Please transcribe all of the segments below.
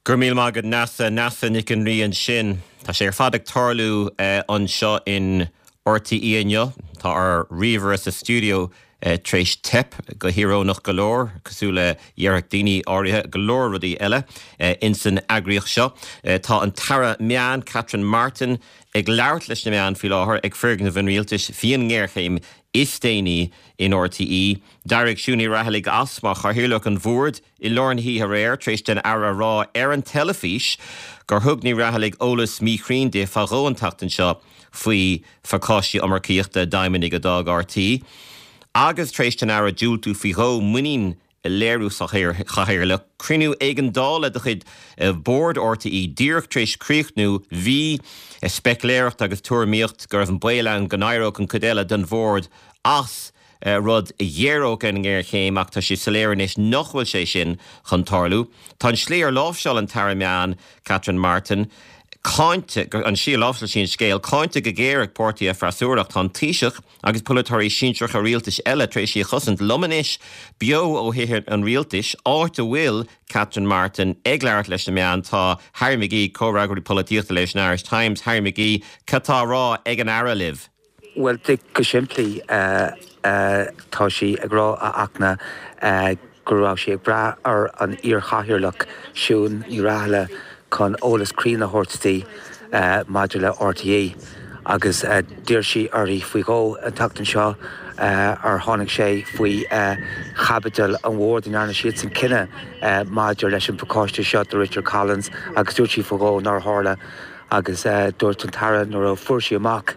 Go raibh míle maith agat Neasa, Neasa Nic an Rí ansin. Tá sé ar fad ag tarlú anseo in RTÉ inniu. Tá ár ríomhaire sa stiúideo tar éis teip, go híorónach go leor, cosúil le déarfadh daoine áirithe go leor rudaí eile ins an eagraíocht seo. Tá an tAire Meán, Catherine Martin, ag labhairt leis na meáin faoi láthair ag foirgneamh an Rialtais faoin ngéarchéim is déanaí in RTÉ. D'éirigh Siún Ní Raghallaigh as mar chathaoirleach an bhoird i lár na hoíche aréir tar éis don Aire a rá ar an teilifís gur thug Ní Raghallaigh eolas míchruinn di fá dhó an tseachtain seo faoi phacáistí iomarcaíochta d'fheidhmeannaigh a d'fhág RTÉ agus tar éis don Aire diúltú faoi dhó muinín a léiriú sa chathaoirleach. Cruinniú éigeandála de chuid Bhord RTÉ díreach tar éis críochnú. Bhí speicléireacht agus tuairimíocht go raibh an baol ann go n-éireodh an chuid eile den bhord as. rud a ghéaródh an ngéarchéim ach tá sé soiléir anois nach bhfuil sé sin chun tarlú. Tá an slí ar láimhseáil an tAire Meán, Catherine Martin, cáinte, an slí ar láimhseáil sí an scéal, cáinte go géar ag páirtithe freasúra ach tá an Taoiseach agus polaiteoirí sinsearacha rialtais eile tar éis í a chosaint. Liom anois, beo ó Thithe an Rialtais, áit a bhfuil Catherine Martin ag labhairt leis na meáin, tá Harry McGee, comhfhreagraí polaitíochta leis an Irish Times. Harry McGee, cad tá á rá ag an Aire libh? Bhuel, go simplí, tá sí ag rá, a Fhachtna, go raibh sí ag brath ar an iar-chathaoirleach, Siún Ní Raghallaigh, chun eolas cruinn a thabhairt di maidir le RTÉ agus d'iarr sí uirthi faoi dhó an tseachtain seo ar tháinig sé faoi chaibidil an bhoird a ndearna siadsan cinneadh maidir leis an bpacáiste seo do Richard Collins agus dúirt sí faoi dhó nár tharla. Agus dúirt an tAire nuair a fuair sí amach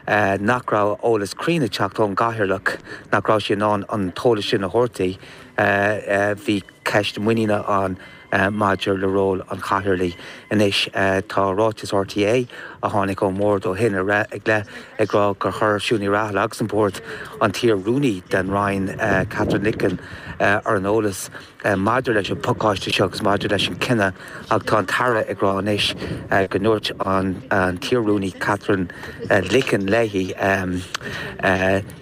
nach raibh eolas cruinn ag teacht ón gCathaoirleach, nach raibh sí in ann an t-eolas sin a thabhairt di, bhí ceist muiníne ann maidir le ról an Chathaoirligh. Anois tá ráiteas RTÉ a tháinig ón mBord ó shin i leith ag rá gur chuir Siún Ní Raghallaigh agus an Bord an t-iar-rúnaí den Roinn, Katherine Licken, ar an eolas. Maidir leis an bpacáiste seo agus maidir leis an chinneadh, ach tá an tAire ag rá anois go ndúirt an t-iar-rúnaí Katherine Licken léi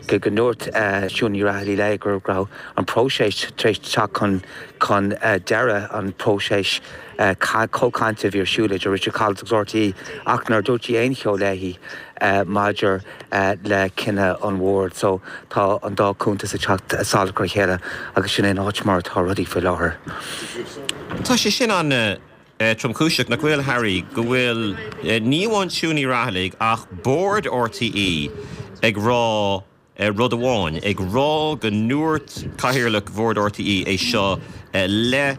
go ndúirt Siún Ní Raghallaigh léi go raibh an próiseas tar éis teacht chun deireadh, an próiseas comhchainte a bhí ar siúl idir Richard Collins agus RTÉ ach nár dúirt sí aon cheo léi maidir le cinneadh an bhoird. So tá an dá chuntas ag teacht salach ar a chéile agus sin é an áit mar atá rudaí faoi láthair. Tá sé sin an-tromchúiseach, nach bhfuil, Harry, go bhfuil ní amháin Siún Ní Raghallaigh ach bord RTÉ ag rá rud amháin, ag rá go ndúirt Cathaoirleach Bhord RTÉ é seo le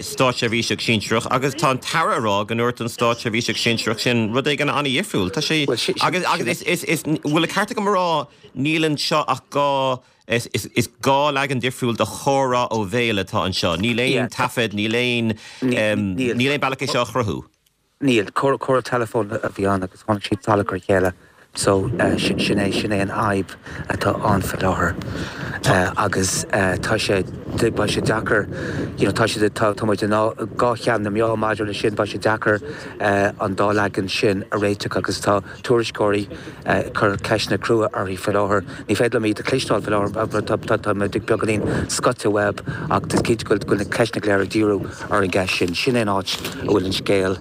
státseirbhíseach sinsearach agus tá an tAire ag rá go ndúirt an státseirbhíseach sinsearach sin rud éigin an-dhifriúil. Tá sé agus agus is is bhfuil an ceart agam a rá níl anseo ach dhá is is dhá leagan difriúil de chomhrá ó bhéal atá anseo. Níl aon taifead, níl aon níl aon bealach é seo a chruthú. Níl. Comhrá teileafóin a bhí ann agus tháinig siad salach ar a chéile. So, sin é, sin é an fhadhb atá ann faoi láthair. Agus tá sé, beidh sé deacair, you know, tá sé, tá, tá muid i ndhá cheann na meá maidir leis sin, beidh sé deacair an dá leagan sin a réiteach agus tá tuairisceoirí ag cur ceisteanna crua uirthi faoi láthair. Ní féidir liom iad a chloisteáil faoi láthair, tá, tá muid beagáinín scoite uaidh ach is cinnte go bhfuil na ceisteanna go léir ag díriú ar an gceist sin. Sin é an áit a bhfuil an scéal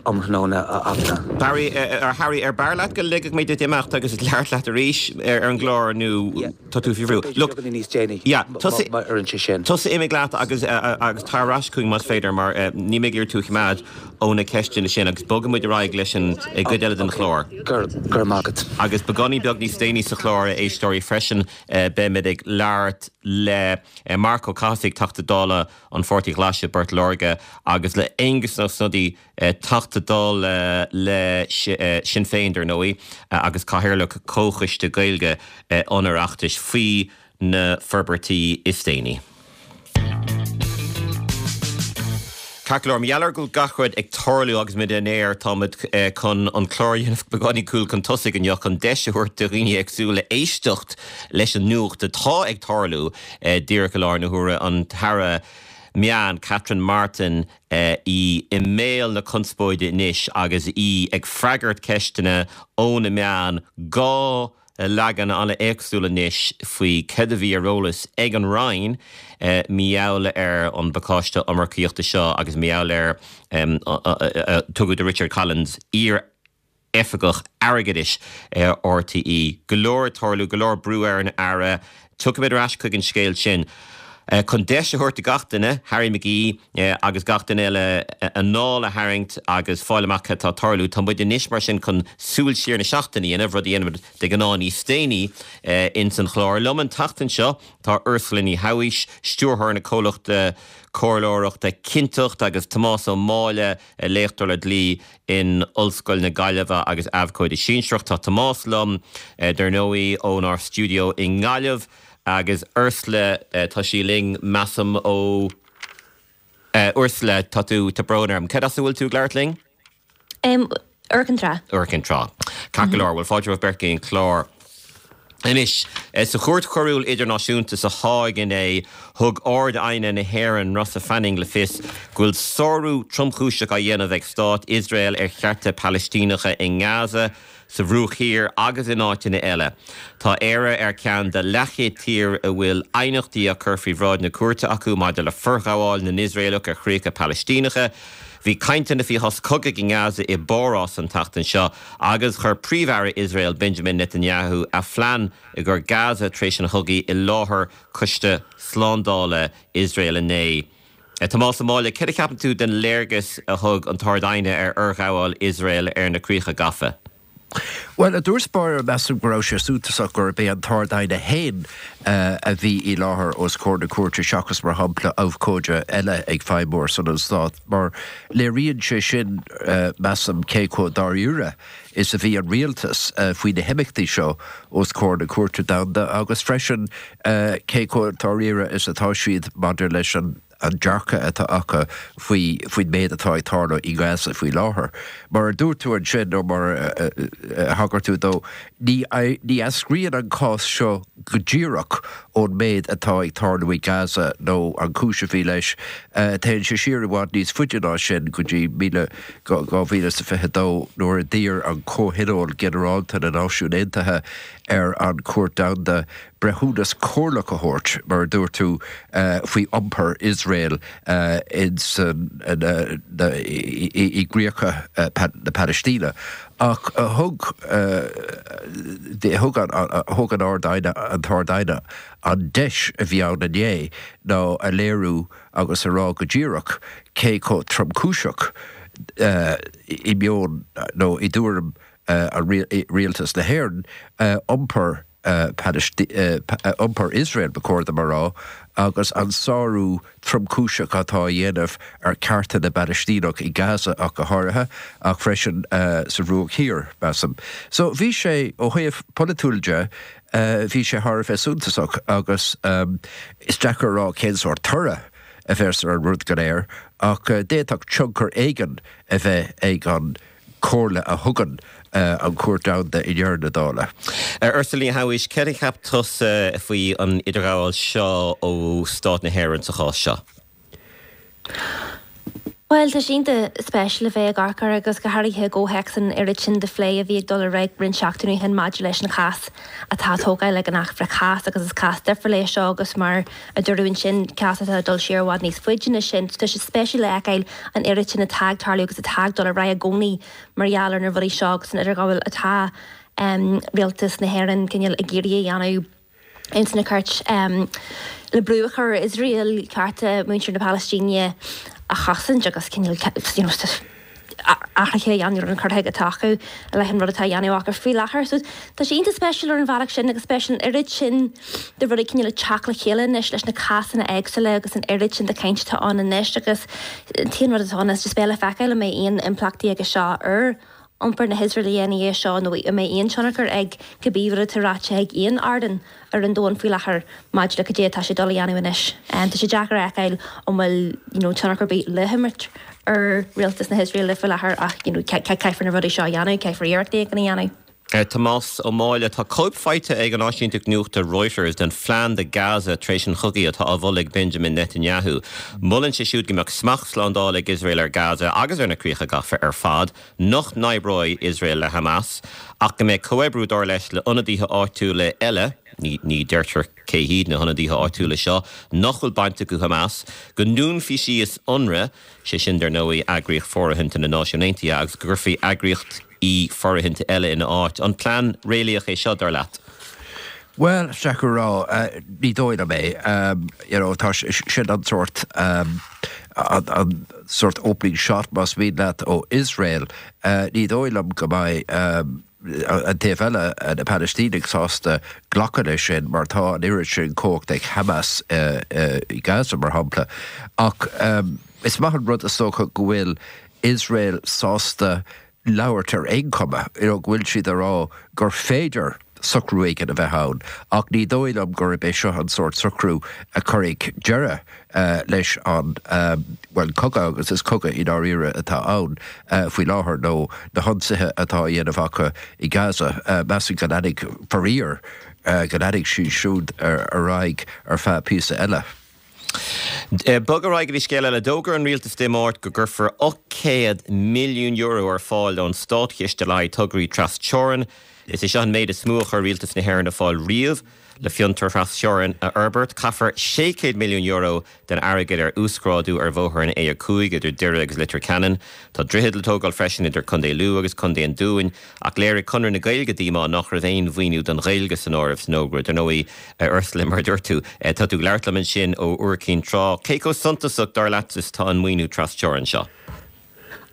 um thráthnóna, a Fhachtna. Barry, ar Harry, ar b'fhearr leat go ligfeadh mé duit imeacht agus labhairt leat arís ar an gclár nó tá tú faoi bhrú? Look, beagáinín níos déanaí yeah, tusa, má oireann sé sin. Tusa imigh leat agus agus tar ar ais chugainn más féidir mar níl mé ag iarraidh tú a choimeád ó na ceisteanna sin agus bogfaidh muid ar aghaidh leis an gcuid eile den chlár. Go raibh maith agat. Agus beagáinín beag níos déanaí sa chlár, a éisteoirí, freisin beimid ag labhairt le Marc Ó Cathasaigh, Teachta Dála an Pháirtí Ghlais i bPort Láirge agus le Aengus Ó Snodaigh, Teachta Dála le Sinn Féin, dar ndóigh, agus Cathaoirleach Comhchoiste Gaeilge an Oireachtais, faoi na forbairtí is déanaí. Ceart go leor, mar gheall ar go bhfuil gach rud ag tarlú agus muid in aer, tá muid chun an clár a dhéanamh beagáinín cúl chun tosaigh inniu chun deis a thabhairt do dhaoine éagsúla éisteacht leis an nuacht atá ag tarlú díreach i láthair na huaire, an tAire Meán, Catherine Martin, í i mbéal na conspóide anois agus í ag freagairt ceisteanna ó na meáin. 2. leagan an-éagsúil anois faoi céard a bhí ar eolas ag an Roinn mar gheall ar an bpacáiste iomarcaíochta seo agus mar gheall ar tugadh do Richard Collins, iar-oifigeach airgeadais RTÉ. Go leor ag tarlú, go leor brú ar an Aire. Tiocfaimid ar ais chuig an scéal sin. Chun deis a thabhairt do gach duine, Harry McGee agus gach duine eile, anáil a tharraingt agus fáil amach cad atá ag tarlú, tá muid anois mar sin chun súil siar na seachtaine a dhéanamh, rud a dhéanaimid de ghnáth níos déanaí ins an chlár. Liom an tseachtain seo tá Ursula Ní Shabhaois, stiúrthóir na comhlachta comhairleoireachta Cinnteacht agus Tomás Ó Máille, léachtóir le dlí in Ollscoil na Gaillimhe agus abhcóide sinsearach. Tá Tomás liom, dar ndóigh, ónár stiúideo i nGaillimh agus Ursula, tá sí linn, measaim, ó. Ursula, tá tú, tá brón orm. Cad as a bhfuil tú ag labhairt linn? Iúr Cinn Trá. Iúr Cinn Trá. Ceart go leor, bhuel fáilte romhaibh beirt go dtí an clár. Anois, sa Chúirt Choiriúil Idirnáisiúnta sa Háig inné, thug Ard-Aighne na hÉireann, Rossa Fanning, le fios go bhfuil sárú tromchúiseach á dhéanamh ag Stát Iosrael ar chearta Palaistíneacha i nGaza, sa Bhruach Thiar agus in áiteanna eile. Tá Éire ar cheann de leathchéad tír a bhfuil aighneachtaí á cur faoi bhráid na cúirte acu maidir le forghabháil na nIosraelach ar chríocha Palaistíneacha. Bhí cainteanna faoi shos cogaidh i nGaza i bPárás an tseachtain seo agus chuir Príomh-Aire Iosrael Benjamin Netanyahu a phlean i gcomhair Gaza tar éis an chogaidh i láthair Coiste Slándála Iosrael inné. Tomás Ó Máille, céard a cheapann tú den léargas a thug an tArd-Aighne ar fhorghabháil Iosrael ar na críocha gafa? Bhuel, i dtús báire, measaim go raibh sé suntasach gurb é an tArd-Aighne féin a bhí i láthair os comhair na cúirte seachas, mar shampla, abhcóide eile ag feidhmiú ar son an Stáit, mar léiríonn sé sin, measaim, cé chomh dáiríre is a bhí an rialtas faoi na himeachtaí seo os comhair na Cúirte Domhanda agus freisin cé chomh dáiríre is atá siad maidir leis an an dearcadh atá acu faoi faoin méid atá ag tarlú i nGaza faoi láthair. Mar a dúirt tú ansin, nó mar a thagair tú dó, ní ní eascraíonn an cás seo go díreach ón méid atá ag tarlú i Gaza nó an chúis a bhí leis. Téann sé siar i bhfad níos faide ná sin, go dtí 2022 nuair a d'iarr an Comhthionól Ginearálta na Náisiún Aontaithe ar an Chúirt Domhanda breithiúnas comhairleach a thabhairt, mar a dúirt tú, faoi iompar Iosrael i gcríocha na Palaistíne. Ach thug thug an Ard-Aighne, an tArd-Aighne, an deis a bhí ann inné ná a léiriú agus a rá go díreach cé chomh tromchúiseach i meon nó i dtuairim rialtas na hÉireann iompar iompar Iosrael, ba chóir dom a rá, agus an sárú tromchúiseach atá á dhéanamh ar chearta na bPalaistíneach i Gaza ach go háirithe, ach freisin sa Bhruach Thiar, measaim. So bhí sé, ó thaobh polaitiúil de, bhí sé thar a bheith suntasach agus is deacair a rá cén sórt toradh a bheas ar an rud go léir ach d'fhéadfadh tionchar éigin a bheith ag an comhairle a thugann an Chúirt Domhanda i ndeireadh na dála. Ursula Ní Shabhaois, céard a cheap tusa faoi an idirghabháil seo ó Stát na hÉireann sa chás seo? Bhuel, tá sé iontach spéisiúil a bheith ag amharc air agus go háirithe i gcomhthéacs an oiread sin de phlé a bhí ag dul ar aghaidh roinnt seachtainí ó shin maidir leis an chás atá á tógáil ag an Acht Frith-Chás agus is cás difriúil é seo agus mar a dúradh ansin, cás atá ag dul siar i bhfad níos faide ná sin. Tá sé spéisiúil a fheiceáil an oiread sin atá ag tarlú agus atá ag dul ar aghaidh i gcónaí mar gheall ar na rudaí seo agus an idirghabháil atá rialtas na hÉireann cineál ag iarraidh a dhéanamh ins na cúirt le brú a chur ar Iosrael cearta muintir na Palaistíne a chosaint agus cineál you know athruithe a dhéanamh ar an cur chuige atá acu i leith an rud atá á dhéanamh acu faoi láthair. So tá sé iontach spéisiúil ar an bhealach sin agus spéisiúil an oiread sin de rudaí cineál ag teacht le chéile anois leis na cásanna éagsúla agus an oiread sin de chaint atá ann anois agus an t-aon rud atá ann is just beidh le feiceáil an mbeidh aon impleachtaí aige seo ar iompar na hIosraeile ina dhiaidh seo nó an mbeidh aon tionchar ag cibé rud atá ráite ag aon ardán ar an domhan faoi láthair maidir le cad é atá sé ag dul a dhéanamh anois. Tá sé deacair a fheiceáil an bhfuil you know tionchar ar bith le himirt ar rialtas na hIosraeile faoi láthair ach you know caithfear na rudaí seo a dhéanamh, caithfear iarrachtaí éigin a dhéanamh. Tomás Ó Máille, Tá cóip faighte ag an áisínteacht nuachta Reuters den phlean do Gaza tar éis an chogaidh atá á mholadh ag Benjamin Netanyahu. Molann sé siúd go mbeadh smacht slándála ag Iosrael ar Gaza agus ar na críocha gafa ar fad, nach n-oibreoidh Iosrael le Hamas, ach go mbeadh comhoibriú, dar leis, le ionadaithe áitiúla eile, ní deirtear cé hiad na hionadaithe áitiúla seo, nach bhfuil baint acu Hamas, go ndúnfaí síos Unrwa, sé sin, dar ndóigh, eagraíocht fóirithinte na Náisiún Aontaithe, agus go gcuirfí eagraíochtaí fóirithinte eile ina áit. An plean réalaíoch é seo, dar leat? Bhuel, is deacair a rá. Ní dóigh liom é. You know, tá sin an sórt, an sórt opening shot, más mian leat, ó Iosrael. Ní dóigh liom go mbeidh an taobh eile, na Palaistínigh, sásta glacadh leis sin mar tá an oiread sin cumhacht ag Hamas i Gaza, mar shampla. Ach is maith an rud, is dócha, go bhfuil Iosrael sásta labhairt ar aon chuma, you know, go bhfuil siad ag rá gur féidir socrú éigin a bheith ann, ach ní dóigh liom gurb é seo an sórt socrú a chuirfidh deireadh leis an, bhuel, cogadh, agus is cogadh i ndáiríre atá ann faoi láthair, nó na hionsaithe atá á dhéanamh acu i Gaza. Measaim go leanfaidh, faraor, go leanfaidh siad siúd ar aghaidh ar feadh píosa eile. Bog ar aghaidh go dtí scéal eile. D'fhógair an rialtas Dé Máirt go gcuirfear €800 milliún ar fáil ón státchiste le haghaidh tograí tras-teorann. Is é seo an méid is mó a chuir rialtas na hÉireann ar fáil riamh le fiontair thras-teorann a fhorbairt. Caithfear €600 milliún den airgead ar uasghrádú ar bhóthar an A5 idir Doire agus Leitir Ceanainn. Tá droichead le tógáil freisin idir Contae Lú agus Contae an Dúin. Ach léirigh Conradh na Gaeilge díomá nach raibh aon mhaoiniú don Ghaeilge san áireamh san fhógra. Dar ndóigh, a Ursula, mar a dúirt tú, tá tú ag labhairt liom ansin ó Iúr Cinn Trá. Cé chomh suntasach, dar leat, is atá an maoiniú tras-teorann seo?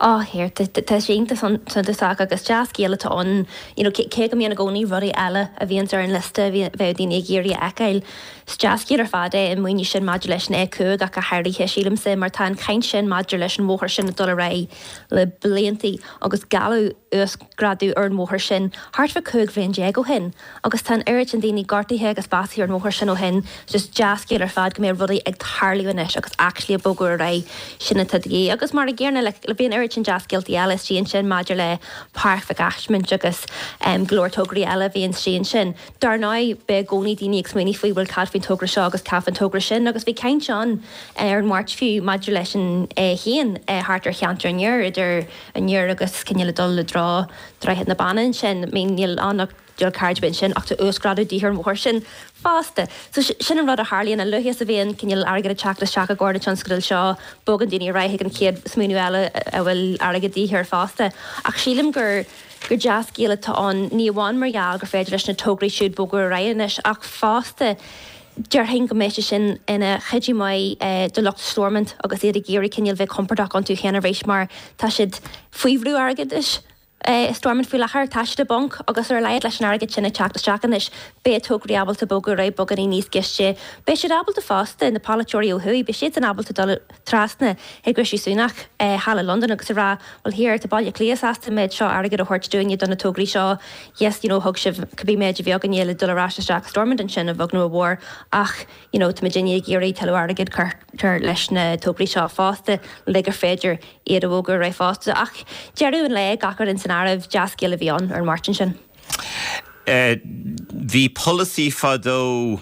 Á, here, tá sé iontach suntasach agus dea-scéal atá ann, you know, cé go mbíonn i gcónaí rudaí eile a bhíonns ar an liosta a bheadh daoine ag iarraidh a fheiceáil. Is dea-scéal ar fad é an maoiniú sin maidir leis an A5 ach go háirithe, sílimse, mar tá an chaint sin maidir leis an bhóthar sin ag dul ar aghaidh le bliantaí agus gealladh uasghrádú ar an bhóthar sin thart fá 15 bhliain ó shin agus tá an oiread sin daoine gortaithe agus básaithe ar an bhóthar sin ó shin. Just dea-scéal ar fad go mbeidh rudaí ag tarlú anois agus actually ag bogadh ar aghaidh, sin atá de dhíth. Agus mar an gcéanna like bhí an oiread sin dea-scéaltaí eile istigh ansin maidir le Páirc Mhic Asmaint agus go leor tograí eile a bhí istigh ansin. Dar ndóigh, beidh i gcónaí daoine ag smaoineamh faoi bhuel cad faoin togra seo agus cad faoin togra sin agus bhí caint ann ar an Mháirt fiú maidir leis an A1 thart ar cheantar an Iúir, idir an Iúr agus cineál ag dul i dtreo Droichead na Banna ansin. I mean níl ann ach dual carriageway ansin ach tá uasghrádú de dhíth ar an bhóthar sin fosta. So sin an rud a tharlaíonn, a luaithe is a bhíonn cineál airgead ag teacht isteach i gcomhair na tionscadail seo, bogann daoine ar aghaidh chuig an chéad smaoineamh eile a bhfuil airgead de dhíth air fosta. Ach sílim gur gur dea-scéal atá ann, ní amháin mar gheall gur féidir leis na tograí siúd bogadh ar aghaidh anois ach fosta déarfainn go mbeidh sé sin ina chuidiú maith do lucht Stormont agus iad ag iarraidh cineál bheith compordach iontu féin arís mar tá siad faoi bhrú airgeadais i Stormont faoi láthair. Tá siad i bponc agus ar a laghad leis an airgead sin ag teacht isteach anois beidh tograí ábalta bogadar aghaidh beagáinín níos gaiste. Beidh siad ábalta fosta, na polaiteoirí ó thuaidh, beidh siadsan ábalta dul trasna chuig Rishi Sunak thall i Londain agus a rá bhuel here, tá Baile Átha Cliath sásta an méid seo airgid a thabhairt dúinne do na tograí seo, yes, you know, thug sibh cibé méid a bhí againne le dul ar ais isteach i Stormont ansin, a bheag nó a mhór, ach you know, tá muidinne ag iarraidh tuilleadh airgid cur leis na tograí seo fosta le gur féidir iad a bhogadh ar aghaidh fosta. Ach deireadh an lae, gach rud san áireamh, dea-scéal a bhí ann ar an Máirt ansin. Bhí polasaí fadó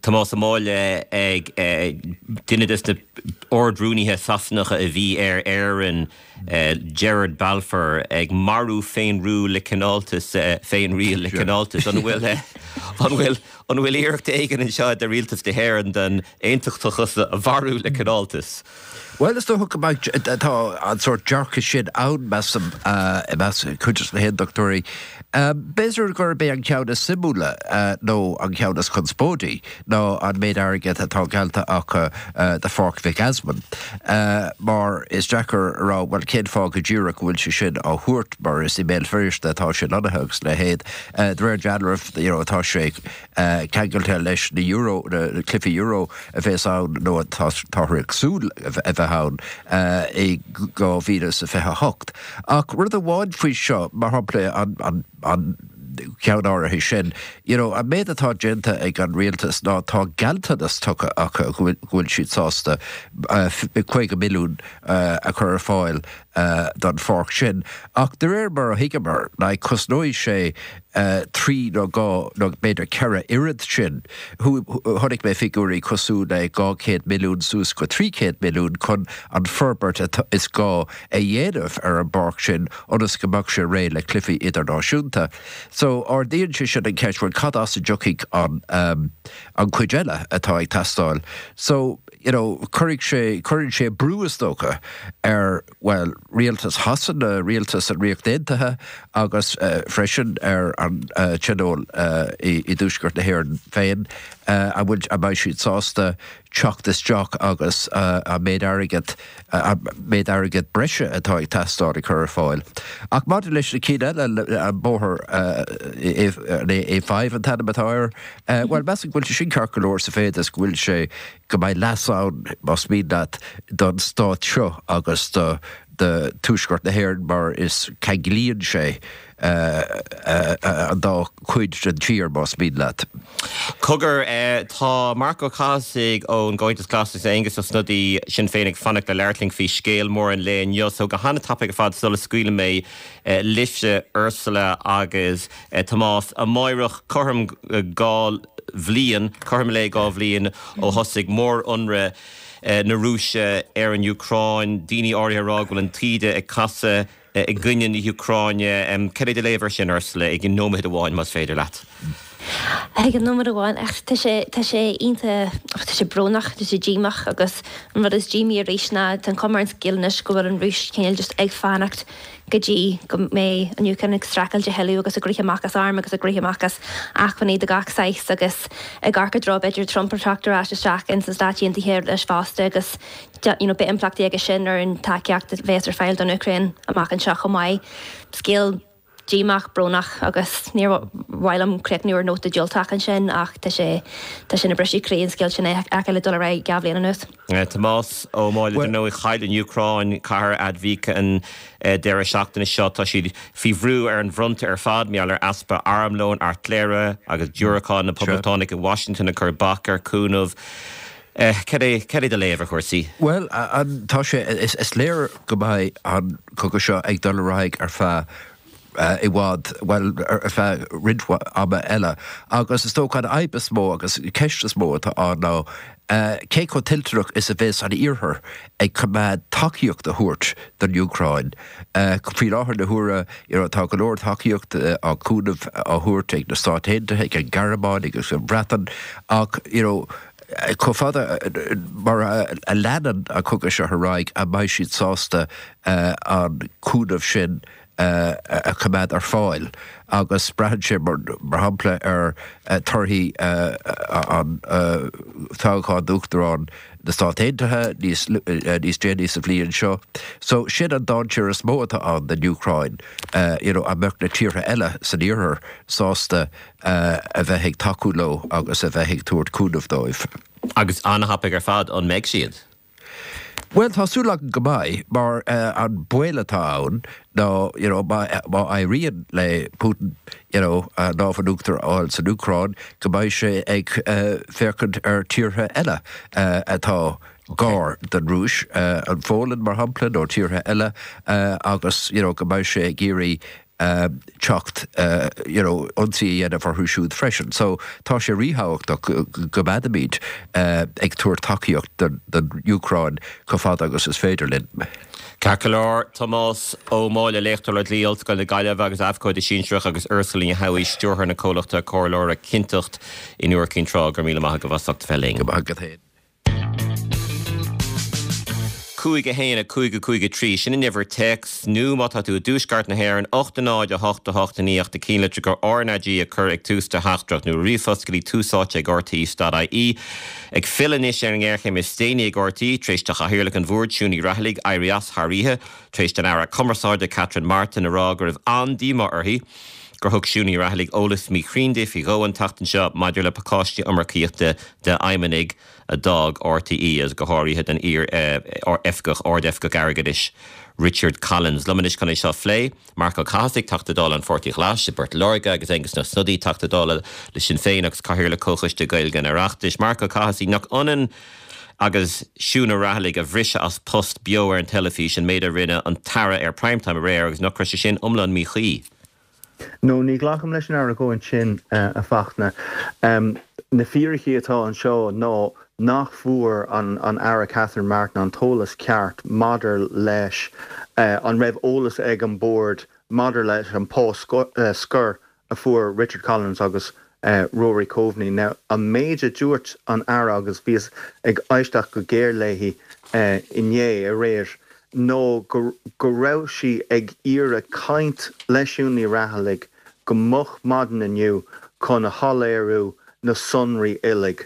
Tomás Ó Máille ag duine des na Ard-Rúnaithe Sasanacha a bhí ar Éirinn, Gerard Balfour, ag marú féinriúil le cineáltas, féinriail le cineáltas. An bhfuil, an bhfuil, an bhfuil iarracht éigin anseo de Rialtas na hÉireann den aontachtachas a mharú le cineáltas? Bhuel, is dócha go mbeidh, tá an sórt dearcadh sin ann, measaim, i measc cuid de na haontachtóirí. B'fhéidir gurb é an ceann is suimiúla, nó an ceann is conspóidí, ná an méid airgid atá geallta acu do Pháirc Mhic Easmainn. Mar is deacair a rá, bhuel, cén fáth go díreach go bhfuil sé sin á thabhairt, mar is i mBéal Feirste atá sé lonnaithe agus a leithéid. De réir dealraimh, you know, tá sé ceangailte leis na Euro, na cluichí Euro a bheas ann nó atáthar ag súil a bheith ann i 2028. Ach rud amháin faoi seo, mar shampla an an ceann áirithe sin, you know, an méid atá déanta ag an rialtas ná tá gealltanas tugtha acu go bhfuil siad sásta 50 milliún a chur ar fáil. don pháirc sin. Ach de réir mar a thuigeamar, like, cosnóidh sé trí nó dhá nó b'fhéidir ceithre oiread sin. Chonaic mé figiúirí cosúil le 200 milliún suas go 300 milliún chun an forbairt is gá a dhéanamh ar an bpáirc sin ionas go mbeadh sé réidh le cluichí idirnáisiúnta. So ardaíonn sé sin an cheist, bhuel cad as a dtiocfaidh an an chuid eile atá ag teastáil? So, you know, cuirfidh sé, cuireann sé brú is dócha ar, bhuel, rialtas Shasana, rialtas an Ríocht Aontaithe agus freisin ar an Tionól i dTuaisceart na hÉireann féin, an bhfuil, an mbeidh siad sásta teacht isteach agus an méid airgid, an méid airgid breise atá ag teastáil a chur ar fáil. Ach maidir leis na cinn eile, an bóthar, an A5 an t-ainm atá air, bhuel, measaim go bhfuil sé sin ceart go leor sa mhéid is go bhfuil sé, go mbeidh leas ann, más mian leat, don stát seo agus do Tuaisceart na hÉireann mar is ceanglaíonn sé an dá chuid den tír, más mian leat. Cogar, tá Marc Ó Cathasaigh ón gComhaontas Glas agus Aengus Ó Snodaigh, Sinn Féin, ag fanacht le labhairt linn faoi scéal mór an lae inniu. So go han-tapaidh ar fad sula scaoilim mé libhse, Ursula agus Tomás, amáireach cothrom 2 bhliain, cothrom lae 2 bhliain ó thosaigh mór-ionradh na Rúise ar an Úcráin, daoine áirithe ag rá go bhfuil an taoide ag casadh i gcoinne na hÚcráine. Cad é do léamh air sin, Ursula, i nóiméad amháin más féidir leat? I nóiméad amháin, ach tá sé, tá sé iontach, tá sé brónach, tá sé díomách agus an rud is díomaí arís ná tá an chuma ar an scéal anois go bhfuil an Rúis cineál just ag fanacht go dtí go mbeidh an Úcráin ag streachailt a thuilleadh agus ag rith amach as airm agus ag rith amach as acmhainní de gach saghas agus ag amharc i dtreo b'fhéidir Trump ag teacht ar ais isteach ins na Stáit Aontaithe leis fosta agus you know beidh impleachtaí aige sin ar an tacaíocht a bheas ar fáil don Úcráin amach anseo chomh maith. Scéal díomách, brónach agus níor mhaith liom críochnú ar nóta diúltach ansin ach tá sé tá sé ina briseadh croí an scéal sin a fheiceáil ag dul ar aghaidh 2 bhliain anuas. Tomás Ó Máille, Dar ndóigh, chaill an Úcráin cathair Avdiivka an deireadh seachtaine seo. Tá siad faoi bhrú ar an bhfronta ar fad mar gheall ar easpa armlóin, airtléire agus diúracán, na Poblachtánaigh i Washington ag cur bac ar chúnamh. Cad é, cad é do léamh ar chúrsaí? Bhuel, tá sé, is léir go mbeidh an cogadh seo ag dul ar aghaidh ar feadh i bhfad, bhuel, ar feadh roinnt ama eile. Agus is dócha an fhadhb is mó agus an ceist is mó atá ann ná cé chomh toilteanach is a bheas an Iarthar ag coimeád tacaíocht a thabhairt don Úcráin. Faoi láthair na huaire, you know, tá go leor tacaíocht á cúnamh á thabhairt ag na Stáit Aontaithe, ag an Ghearmáin agus an Bhreatain ach, you know, chomh fada mar a leanann an cogadh seo ar aghaidh, an mbeidh siad sásta an cúnamh sin a choimeád ar fáil agus braitheann sé, mar shampla, ar torthaí an toghcháin d'Uachtarán na Stát Aontaithe níos níos déanaí sa bhliain seo. So sin an dainséar is mó atá ann don Úcráin, you know, an mbeadh na tíortha eile san iarthar sásta a bheith ag tacú leo agus a bheith ag tabhairt cúnamh dóibh. Agus an-thapaidh ar fad, an mbeidh siad? Bhuel, tá súil agam go mbeidh, mar an baol atá ann ná, you know, má éiríonn le Putin, you know, an lámh in uachtar a fháil san Úcráin, go mbeidh sé ag féachaint ar tíortha eile atá gar don Rúis, an Pholainn, mar shampla, nó tíortha eile, agus, you know, go mbeidh sé ag iarraidh teacht you know ionsaí a dhéanamh orthu siúd freisin. So tá sé ríthábhachtach go gcoimeádfaimid ag tabhairt tacaíocht don Úcráin chomh fada agus is féidir linn. Ceart go leor, Tomás Ó Máille, Léachtóir le Dlí, Ollscoil na Gaillimhe agus Abhcóide Sinsearach agus Ursula Ní Shamhaí, Stiúrthóir na comhlachta comhairleora Cinnteacht in Iúr Cinn Trá, go raibh míle maith agaibh as ucht a bheith linn. Go maith agat féin. 5 1 5 5 3, sin an uimhir téacs, nó má tá tú i dtuaisceart na hÉireann, 8 0 8 8 9 ach do chinnlitreacha RnaG a chur ag tús do theachtaireacht, nó ríomhphost go dtí túsáite ag rte.ie. Ag filleadh anois ar an ngéarchéim is déanaí ag RTÉ, tar éis do Chathaoirleach an Bhoird, Siún Ní Raghallaigh, éirí as thar oíche, tar éis don Aire Cumarsáide, Catherine Martin, a rá go raibh an-díomá uirthi gur thug Siún Ní Raghallaigh eolas míchruinn di faoi dhó an tseachtain seo maidir le pacáistí iomarcaíochta d'fheidhmeannaigh a d'fhág RTÉ agus go háirithe don iar-oifigeach, Ard-Oifigeach Airgeadais Richard Collins. Liom anois chun é seo a phlé, Marc Ó Cathasaigh, Teachta Dála an Pháirtí Ghlais i bPort Láirge agus Aengus Ó Snodaigh, Teachta Dála le Sinn Féin agus Cathaoirleach Comhchoiste Gaeilge an Oireachtais. Marc Ó Cathasaigh, nach ionann. agus Siún Ní Raghallaigh a bhriseadh as post beo ar an teilifís, an méid a rinne an tAire ar Prime Time aréir agus nach raibh sé sin iomlán míchuí? No, ní ghlacaim leis an argóint sin, a Fachtna. Na fíricí atá anseo ná nach bhfuair an Aire Catherine Martin an t-eolas ceart maidir leis an raibh eolas ag an Bord maidir leis an pá scoir a fuair Richard Collins agus Rory Coveney. Now, an méid a dúirt an Aire, agus bhíos ag éisteacht go géar léi inné, aréir, ná go raibh sí ag iarraidh caint le Siún Ní Raghallaigh go moch maidin inniu chun a shoiléiriú na sonraí uilig.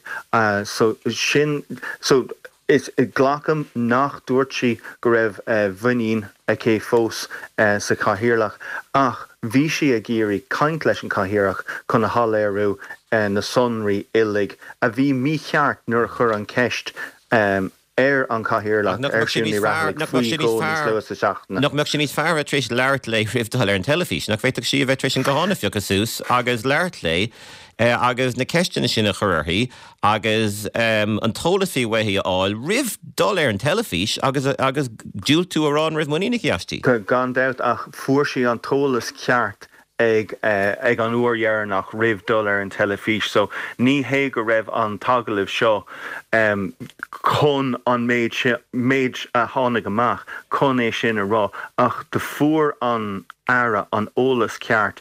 So, sin, so, Is glacaim nach dúirt sí go raibh muinín aici fós sa Chathaoirleach ach bhí sí ag iarraidh caint leis an Chathaoirleach chun a shoiléiriú na sonraí uilig a bhí mícheart nuair a chuir an ceist ar an Chathaoirleach, ar Siún Ní Raghallaigh, faoi dhó níos luaithe sa seachtain. Nach mbeadh sé níos fearr a bheith tar éis labhairt léi roimh dul ar an teilifís? Nach bhféadfadh sí a bheith tar éis an guthán a phiocadh suas agus labhairt léi agus na ceisteanna sin a chur uirthi agus an t-eolas a bhí uaithi a fháil roimh dul ar an teilifís agus agus diúltú a rá an raibh muinín aici aisti. Gan dabht, ach fuair sí an t-eolas ceart ag ag an uair dheireanach roimh dul ar an teilifís so ní hé go raibh an t-agallamh seo chun an méid sin, méid a tháinig amach chun é sin a rá ach do fuair an Aire an eolas ceart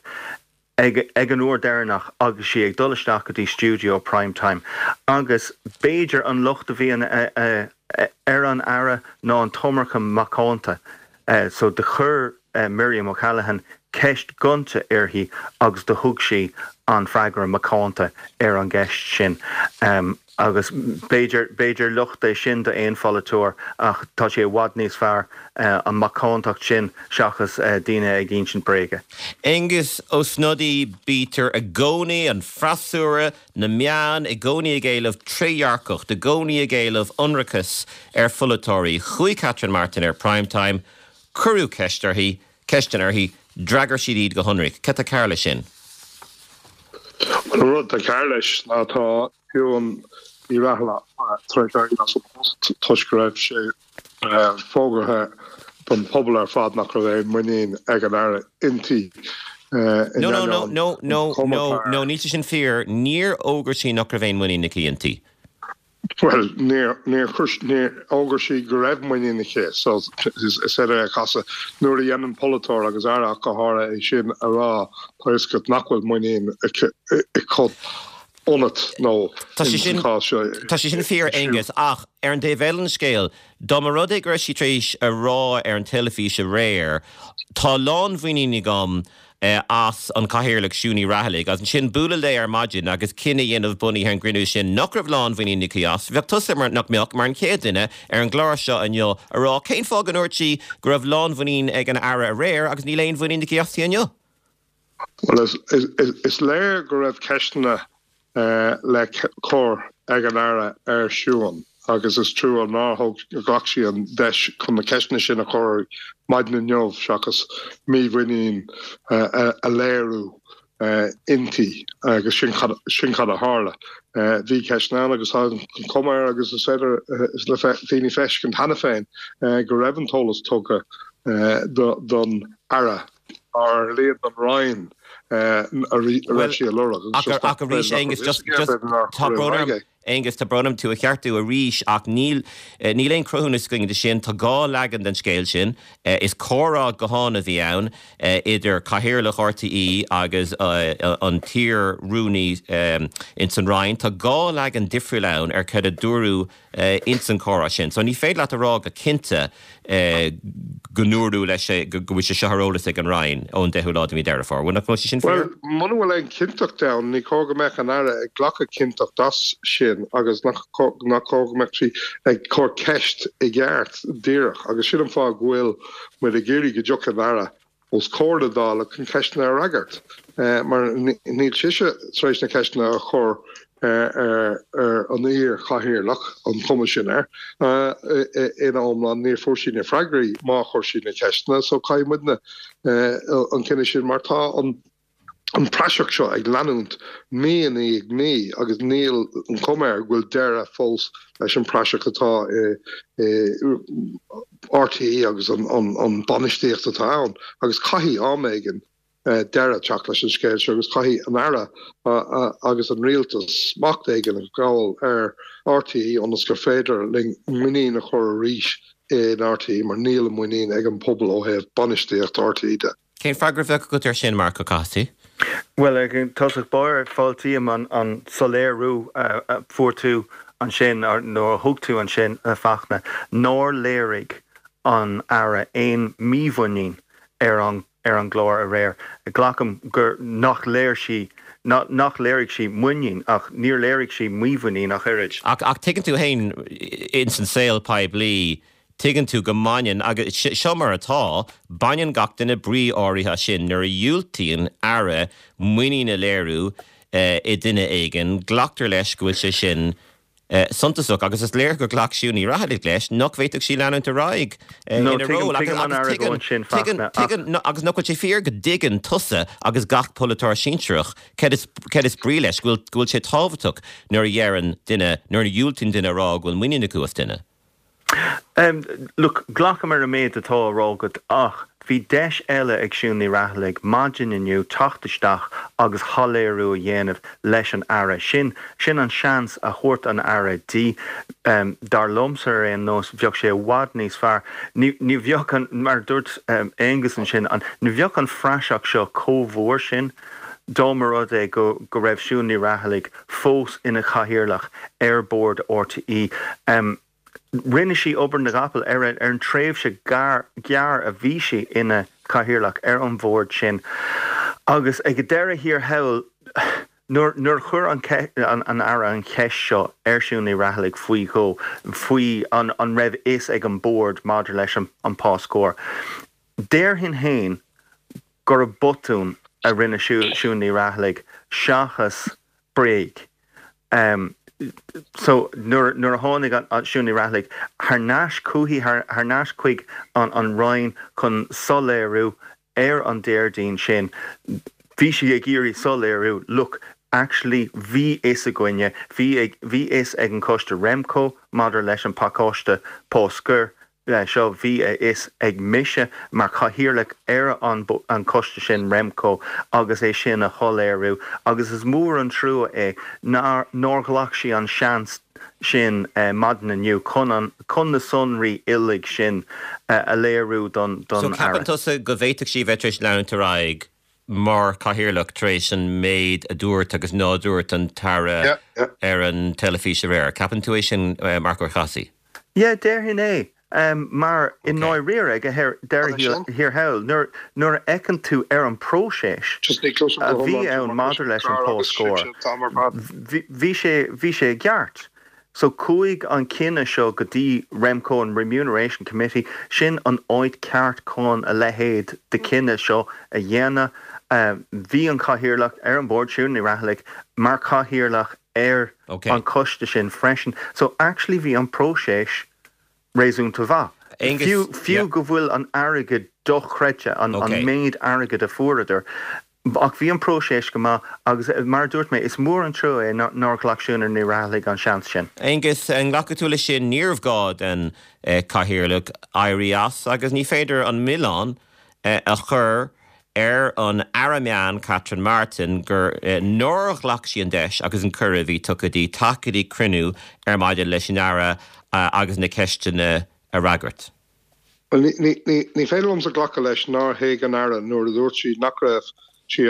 ag ag an uair deireanach agus sí ag dul isteach go dtí stiúideo Prime Time agus b'fhéidir an locht a bhí ar an Aire ná an t-iomarca macánta so do chuir Miriam O'Callaghan ceist gonta uirthi agus do thug sí an freagra macánta ar an gceist sin. Agus b'fhéidir, b'fhéidir locht é sin do aon pholaiteoir ach tá sé i bhfad níos fearr an macántacht sin seachas daoine ag insint bréige. Aengus Ó Snodaigh, Bítear i gcónaí, an freasúra, na meáin, i gcónaí ag éileamh trédhearcacht, i gcónaí ag éileamh ionracas ar pholaiteoirí. Chuaigh Catherine Martin ar Prime Time, cuireadh ceist uirthi, ceisteanna uirthi, d'fhreagair siad iad go hionraic. Cad tá cearr leis sin? Bhuel, an rud atá cearr leis ná tá Siún Ní Raghallaigh tar éis éirí as an bpost toisc go raibh sé fógartha don phobal ar fad nach raibh aon muinín ag an Aire inti. No, no, no, no, no, no, no, níl sé sin fíor. Níor fhógair sí nach raibh aon muinín aici inti. Bhuel, níor, níor chuir, níor fhógair sí go raibh muinín aici, so is féidir é a chasadh. Nuair a dhéanann polaiteoir, agus Aire ach go háirithe, é sin a rá, tá a fhios agat nach bhfuil muinín aici ionat nó Tá sé sin, sa chás seo, tá sé sin fíor, Aengus, ach ar an dtaobh eile den scéal, dá mba rud é go raibh sí tar éis a rá ar an teilifís aréir, tá lánmhuinín agam as an Chathaoirleach Siún Ní Raghallaigh agus ansin bualadh léi ar maidin agus cinneadh a dhéanamh bunaithe ar an gcruinniú sin nach raibh lánmhuinín aici as. Bheadh tusa, mar, nach mbeadh, mar an chéad duine ar an gclár seo inniu a rá cén fáth go ndúirt sí go raibh lánmhuinín ag an Aire aréir agus níl aon mhuinín aici aisti inniu? Bhuel, is léir go raibh ceisteanna le cur ag an Aire ar Siún agus is trua nár thóg, ghlac sí an deis chun na ceisteanna sin a chur maidin inniu seachas mímhuinín a léiriú inti agus sin sin cad a tharla. Bhí ceisteanna ann agus tá an chuma air agus is féidir le daoine feiscint cheana féin go raibh an t-eolas tugtha don Aire. Ar a laghad don Roinn a raibh sí a lorg agus just Ach arís, Aengus, just, just, tá brón orm, Aengus, tá brón orm tú a cheartú arís ach níl, níl aon cruthúnas againn de sin. Tá dhá leagan den scéal sin. Is comhrá gutháin a bhí ann idir Cathaoirleach RTÉ agus an t-iar-rúnaí ins an Roinn. Tá dhá leagan difriúil ann ar cad a dúradh ins an chomhrá sin. So ní féidir leat a rá go cinnte go ndúradh leis go bhfuil sé seo ar eolas ag an Roinn ón 10ú lá de mhí Deireadh Fómhair. Bhuel, nach bhfuil sé sin fíor? Bhuel, muna bhfuil aon chinnteacht ann, ní cóir go mbeadh an Aire ag glacadh cinnteacht as sin agus nach cóir go mbeadh sí ag cur ceist i gceart díreach. Agus sin an fáth go bhfuil muid ag iarraidh go dtiocfaidh an Aire os comhair na Dála chun ceisteanna a fhreagairt, mar níl sise tar éis na ceisteanna a chur ar an iar-chathaoirleach, an chuma sin air, ina iomlán. Níor fuair sí na freagraí má chuir sí na ceisteanna, so caithfidh muidne an cinneadh sin mar tá an. An praiseach seo ag leanúint mí i ndiaidh mí agus níl an chuma air go bhfuil deireadh fós leis an bpraiseach atá i RTÉ agus an bainistíocht atá ann agus caithfidh am éigin deireadh teacht leis an scéal seo agus caithfidh an Aire agus an Rialtas smacht éigin a ghabháil ar RTÉ ionas gur féidir linn muinín a chur arís in RTÉ mar níl an muinín ag an pobal ó thaobh bainistíocht RTÉ de. Cén freagra a bheadh agat air sin, Marc Ó Cathasaigh? Bhuel, i dtosach báire, fáiltím an soiléiriú a fuair tú ansin, nó a thug tú ansin, a Fachtna, nár léirigh an Aire aon mímhuinín ar an ar an gclár aréir. Glacaim gur nach léir sí, nach léirigh sí muinín, ach níor léirigh sí mímhuinín ach oiread. Ach tuigeann tú féin, ins an saol poiblí, Tuigeann tú go mbaineann, agus seo mar atá, baineann gach duine brí áirithe as sin. Nuair a dhiúltaíonn Aire muinín a léiriú i nduine éigin, glactar leis go bhfuil sé sin suntasach agus is léir gur ghlac Siún Ní Raghallaigh leis nach bhféadfadh sí leanúint ar aghaidh ina ról. Agus nach bhfuil sé fíor go dtuigeann tusa agus gach polaiteoir sinsearach céard is brí leis, go bhfuil sé tábhachtach nuair a dheireann duine, nuair a dhiúltaíonn duine a rá go bhfuil muinín acu as duine. Look, glacaim ar an méid atá á rá agat ach bhí deis eile ag Siún Ní Raghallaigh maidin inniu teacht isteach agus shoiléiriú a dhéanamh leis an Aire. Sin, sin an seans a thabhairt an Aire di. Dar liomsa ar aon nós, bheadh sé i bhfad níos fearr. Ní, ní bheadh an, mar a dúirt Aengus ansin, an, ní bheadh an phraiseach seo chomh mhór sin dá mba rud é go, go raibh Siún Ní Raghallaigh fós ina Chathaoirleach ar Bhord RTÉ. Rinne sí obair na gcapall ar an tréimhse ghearr a bhí sí ina Cathaoirleach ar an bhord sin agus ag deireadh thiar thall, nuair a chuir an Aire an cheist seo ar Siún Ní Raghallaigh faoi dhó, faoi an raibh fhios ag an Bord maidir leis an pá scóir, déarfainn féin gurb botún a rinne Siún Ní Raghallaigh seachas bréag. So nuair nuair a tháinig an Siún Ní Raghallaigh thar n-ais chuici, thar n-ais chuig an an Roinn chun soiléiriú ar an Déardaoin sin, bhí sí ag iarraidh soiléiriú, look, actually bhí fhios againne, bhí ag bhí fhios ag an choiste Remco maidir leis an pacáiste pá scoir, seo, bhí a fhios ag mise mar chathaoirleach ar an an choiste sin, Remco, agus é sin a shoiléiriú agus is mór an trua é nár nár ghlac sí an seans sin maidin inniu chun an chun na sonraí uilig sin a léiriú don don So ceapann Aire. tusa go bhféadfadh sí a bheith tar éis leanúint ar aghaidh mar chathaoirleach tar éis an méid a dúirt agus ná dúirt an tAire ar an teilifís aréir? Ceapann tú é sin, Marc Ó Cathasaigh? Yeah, déarfainn é. Mar i ndáiríre, ag deireadh thiar thall, nuair a fheiceann tú ar an bpróiseas a bhí ann maidir leis an pá scóir, bhí sé, bhí sé i gceart. So chuaigh an cinneadh seo go dtí Remco, an Remuneration Committee, sin an áit ceart chun a leithéid de chinneadh seo a dhéanamh. Bhí an cathaoirleach ar an bord, Siún Ní Raghallaigh, mar chathaoirleach ar an choiste sin freisin. So actually bhí an próiseas réasúnta mhaith. Fiú, fiú go bhfuil an airgead dochreidte, an méid airgid a fuaireadar, ach bhí an próiseas go maith agus mar a dúirt mé, is mór an trua é nár ghlac Siún Ní Raghallaigh an seans sin. Aengus, an nglacfaidh tú leis sin? Níorbh ghá don Chathaoirleach éirí as agus ní féidir an milleán a chur ar an Aire Meán Catherine Martin gur nár ghlac sí an deis agus an cuireadh a bhí tugtha di teacht go dtí cruinniú ar maidin leis an Aire agus na ceisteanna a fhreagairt. Bhuel, ní féidir liomsa glacadh leis nár thuig an Aire nuair a dúirt sí nach raibh sí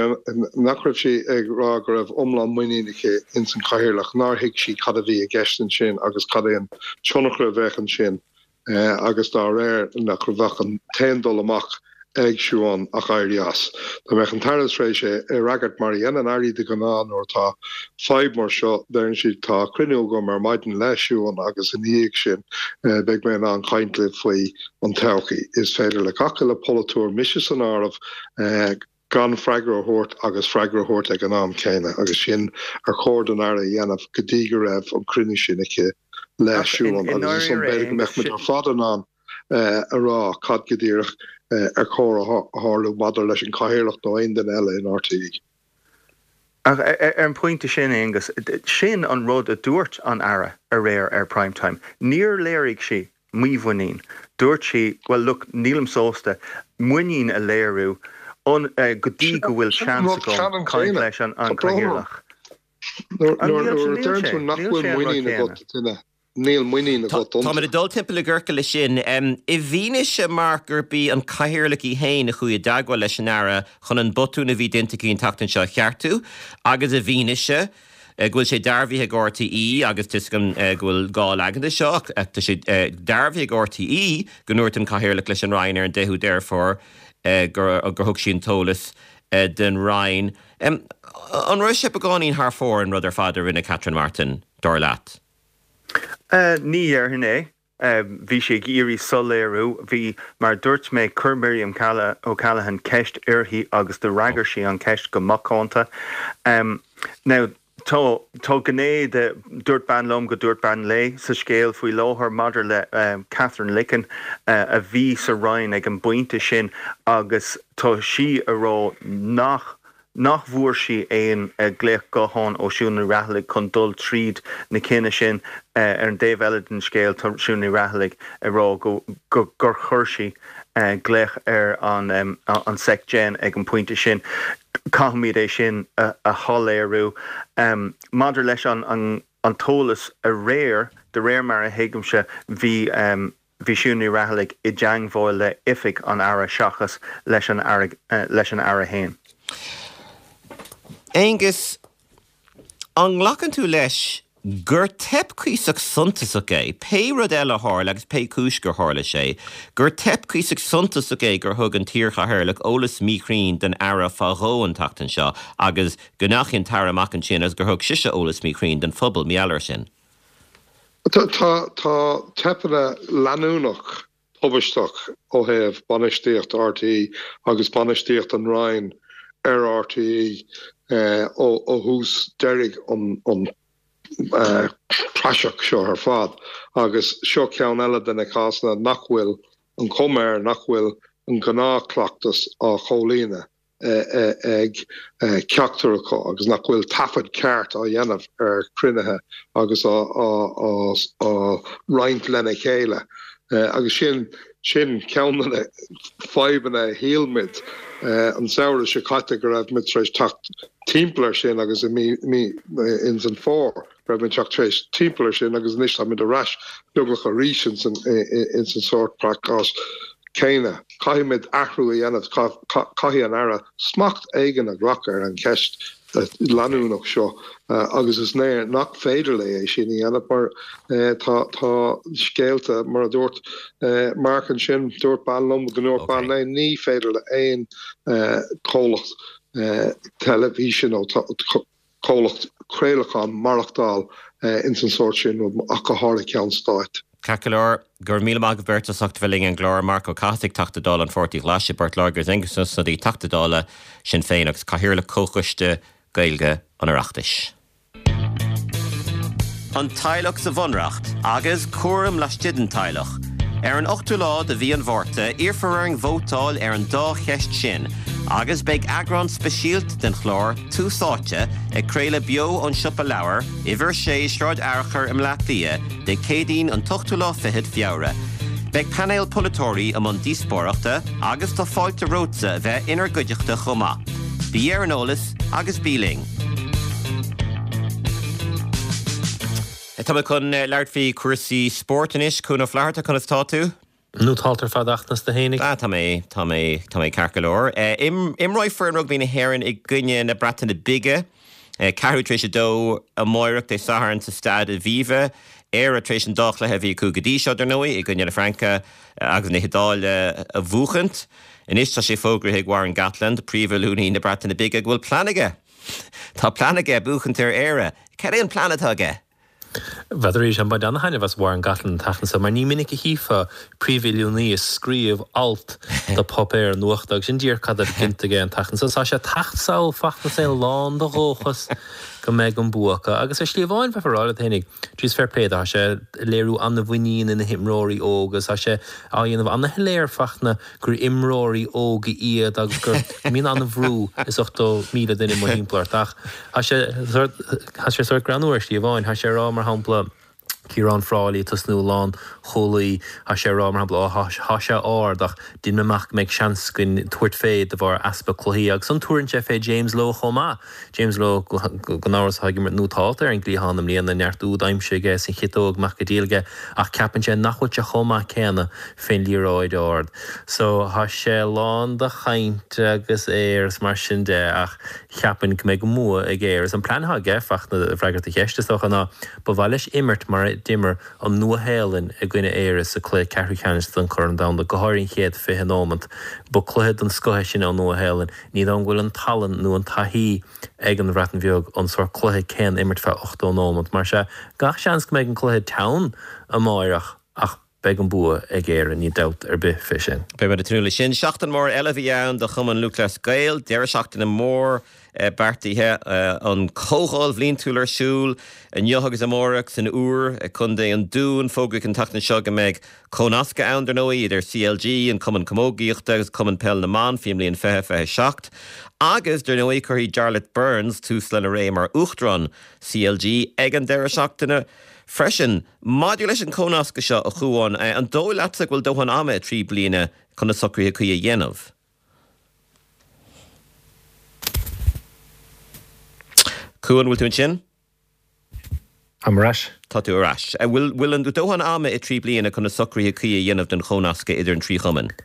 nach raibh sí ag rá go raibh iomlán muinín aici ins an Chathaoirleach, nár thuig sí cad a bhí i gceist ansin agus cad é an tionchar a bheadh ansin. agus dá réir nach bheadh an t-aon dul amach ag Siún ach éirí as. Dá mbeadh an tAire tar éis é a fhreagairt mar a dhéanann Airí de ghnáth nuair atá fadhb mar seo, deireann siad tá cruinniú agam ar maidin le Siún agus ina dhiaidh sin beidh mé in ann caint libh faoi an todhchaí. Is féidir le gach uile pholaiteoir, mise san áireamh, gan freagra a thabhairt agus freagra a thabhairt ag an am céanna agus sin ar chóir don Aire a dhéanamh go dtí go raibh an cruinniú sin aici le Siún agus ansan b'fhéidir go mbeadh muid ar fad in ann a rá cad go díreach ar chóir a tharlú maidir leis an Chathaoirleach nó aon duine eile in RTÉ. Ach ar an bpointe sin, Aonghus, sin an rud a dúirt an Aire aréir ar Prime Time. Níor léirigh sí mímhuinín. Dúirt sí, well look, nílim sásta muinín a léiriú go dtí go bhfuil seans agam caint leis an Cathaoirleach. Nuair a deireann tú nach bhfuil muinín agat i nduine, níl muinín agat iontu. Táimid ag dul timpeall i gciorcal leis sin. I bhfianaise, Mark, gurb í an Cathaoirleach í féin a chuaigh i dteagmháil leis an Aire chun an botún a bhí déanta aici an tseachtain seo a cheartú agus i bhfianaise go bhfuil sé dearbhaithe ag RTÉ, agus tá 'fhios agam go bhfuil gá leagan de seo, ach tá sé dearbhaithe ag RTÉ go ndúirt an Cathaoirleach leis an Roinn ar an 10ú Deireadh Fómhair gur thug sí an t-eolas don Roinn. An raibh sé beagáinín thar fóir an rud ar fad a rinne Catherine Martin, dar leat? Ní dhéarfainn é. Bhí sí ag iarraidh soiléiriú. Bhí, mar a dúirt mé, chuir Miriam O'Callaghan ceist uirthi agus d'fhreagair sí an cheist go macánta. Now, tá, tá gné de dúirt bean liom go dúirt bean léi sa scéal faoi láthair maidir le Katherine Licken a bhí sa Roinn ag an bpointe sin agus tá sí a rá nach nach bhfuair sí aon ghlaoch gutháin ó Siún Ní Raghallaigh chun dul tríd na cinneadh sin. Ar an dtaobh eile den scéal, tá Siún Ní Raghallaigh ag rá go gur chuir sí glaoch ar an Sec Gen ag an bpointe sin. Caithfimid é sin a shoiléiriú. Maidir leis an t-eolas aréir, de réir mar a thuigimse, bhí Bhí Siún Ní Raghallaigh i dteangmháil le oifig an Aire seachas leis an Aire leis an Aire fhéin. Aengus, an nglacann tú leis gur teip cuíosach suntasach é, pé rud eile a tharla agus pé cúis gur tharla sé, gur teip cuíosach suntasach é gur thug an t-iarchathaoirleach eolas míchruinn don Aire fá dhó an tseachtain seo agus go ndeachaigh an tAire amach ansin agus gur thug sise eolas míchruinn don phobal mar gheall air sin? Tá teipeanna leanúnach tubaisteach ó thaobh bainistíocht RTÉ agus bainistíocht an Roinn ar RTÉ ó thús deiridh an praiseach seo ar fad agus seo ceann eile de na cásanna nach bhfuil an chuma air nach bhfuil an gnáthchleachtas á chomhlíonadh. ag ceachtar acu agus nach bhfuil taifead ceart á dhéanamh ar chruinnithe agus á roinnt lena chéile. Agus sin sin ceann de na fadhbanna a shíl muid an samhradh seo caite go raibh muid tar éis teacht timpeall air sin agus i mí ins an fómhar. raibh muid teacht tar éis timpeall air sin agus anois táimid ar ais beagnach arís ins an ins an sórt cás céanna. Caithfimid athrú a dhéanamh, caithfidh an Aire smacht éigin a ghlacadh ar an cheist leanúnach seo agus is léir nach féidir léi é sin a dhéanamh mar tá tá scéalta mar a dúirt Mark ansin, dúirt bean liom go ndúirt bean léi, ní féidir le aon chomhlacht teilifíse nó comhlacht craolacháin maireachtáil ins an sórt sin rud, ach go háirithe ceann stáit. Ceart go leor, go raibh míle maith agaibh beirt as ucht a bheith linn ar an gclár, Marc Ó Cathasaigh, Teachta Dála an Pháirtí Ghlais i bPort Láirge agus Aengus Ó Snodaigh, Teachta Dála Sinn Féin agus Cathaoirleach Comhchoiste Gaeilge an Oireachtais. An teaghlach sa Bhunreacht agus cúram laistigh den teaghlach. Ar an 8ú lá de mhí an Mhárta, iarrfar orainn vótáil ar an dá cheist sin agus beidh eagrán speisialta den chlár Tús Áite ag craoladh beo ón Siopa Leabhar, Uimhir 6, Sráid Fhearchair i mBleá Cliath, Dé Céadaoin an t-ochtú lá fichead Feabhra. Beidh painéal polaiteoirí i mbun díospóireachta agus tá fáilte romhatsa a bheith inár gcuideachta chomh maith. Bí ar an eolas agus bí linn! Tá mé chun labhairt faoi chúrsaí spóirt anois. Cuan Ó Flatharta, conas tá tú? Nótálta ar fad a Fhachtna is tú fhéinig. Ah, tá mé, tá mé, tá mé ceart go leor. Imreoidh foireann rugbaí na hÉireann i gcoinne na Breataine Bige, ceathrú tar éis a dó amáireach, Dé Sathairn, sa Staid Aviva. Éire tar éis an dá chluiche a bhí acu go dtí seo, dar ndóigh, i gcoinne na Fraince agus na hIodáile a bhuachaint. Anois tá sé fógraithe ag Warren Gatland, príomhoiliúnaí na Breataine Bige, go bhfuil plean aige. Tá plean aige buachaint ar Éire. Cad é an plean atá aige? N'fheadar arís, ag baint ana-thaitneamh as Warren Gatland an tseachtain seo mar ní minic a chífeá príomhoiliúnaí ag scríobh alt do pháipéar nuachta agus sin díreach cad atá déanta aige an tseachtain seo. Tá sé ag teacht sall a Fhachtna is é lán de dhóchas. go mbeidh an bua acu. Agus ar shlí amháin, bheifeá ag rá leat fhéinig, jeez fair play dó, tá sé ag léiriú an-mhuinín ina himreoirí óga agus tá sé á dhéanamh an-shoiléir Fachtna gur imreoirí óga iad agus go mbíonn an-bhrú is 80,000 duine amuigh thimpeall ort. Ach tá sé tá sé sórt greannmhar ar shlí amháin. Tá sé ag rá, mar shampla, Ciarán Frawley ag tosnú lánchúlaí, tá sé ag rá, mar shampla, ó tá sé ard ach déanaim amach go mbeidh seans againn tabhairt fé de bharr easpa cluichí. Agus ansan tabharann sé fé James Lowe chomh maith. James Lowe, gan amhras, atá ag imirt nótálta ar an gcliathán i mbliana, neart úd aimsithe aige is an chiotóg amach go diail aige ach ceapann sé nach bhfuil sé chomh maith céanna fén liathróid ard. So, tá sé lán de chaint agus aoir is mar sin de ach cheapfainn go mbeidh an bua ag Éire. Is an plean atá aige, Fachtna, ag freagairt do cheist, is dócha, ná ba mhaith leis imirt mar a d'imir an Nua-Shéalainn i gcoinne Éire sa cluiche ceathrú ceannais den Chorn Domhanda, go háirithe an chéad 20 nóimeant. Ba cluiche den scoth é sin ón Nua-Shéalainn. Ní dóigh liom go bhfuil an tallann nó an taithí ag an Bhreatain Bheag an sórt cluiche céanna a imirt feadh 80 nóimeant. Mar sea, gach seans go mbeidh an cluiche teann amáireach ach beidh an bua ag Éire, níl dabht ar bith fé sin. Beidh muid ag tnúth leis sin. Seachtain mhór eile a bhí ann do Chumann Lúthchleas Gael. Deireadh seachtaine mór beartaithe. An Chomhdháil Bhliantúil ar siúl inniu agus amárach san Iúr i gContae an Dúin. Fógraíodh an tseachtain seo go mbeidh Comhnascadh ann, dar ndóigh, idir CLG, an Cumann Camógaíochta agus Cumann Peil na mBan faoin mbliain 2027. Agus, dar ndóigh, cuirfidh Jarlath Burns tús lena ré mar Uachtarán CLG ag an deireadh seachtaine freisin. Maidir leis an chomhnascadh seo, a Chuáin, an dóigh leatsa go bhfuil dóthain ama i dtrí bliana chun na socruithe cuí a dhéanamh? Cuan, bhfuil tú ansin? Táim ar ais. Tá tú ar ais. An bhfuil bhfuil an dóthain ama i dtrí bliana chun na socruithe cuí a dhéanamh don chomhnascadh idir an trí chumann?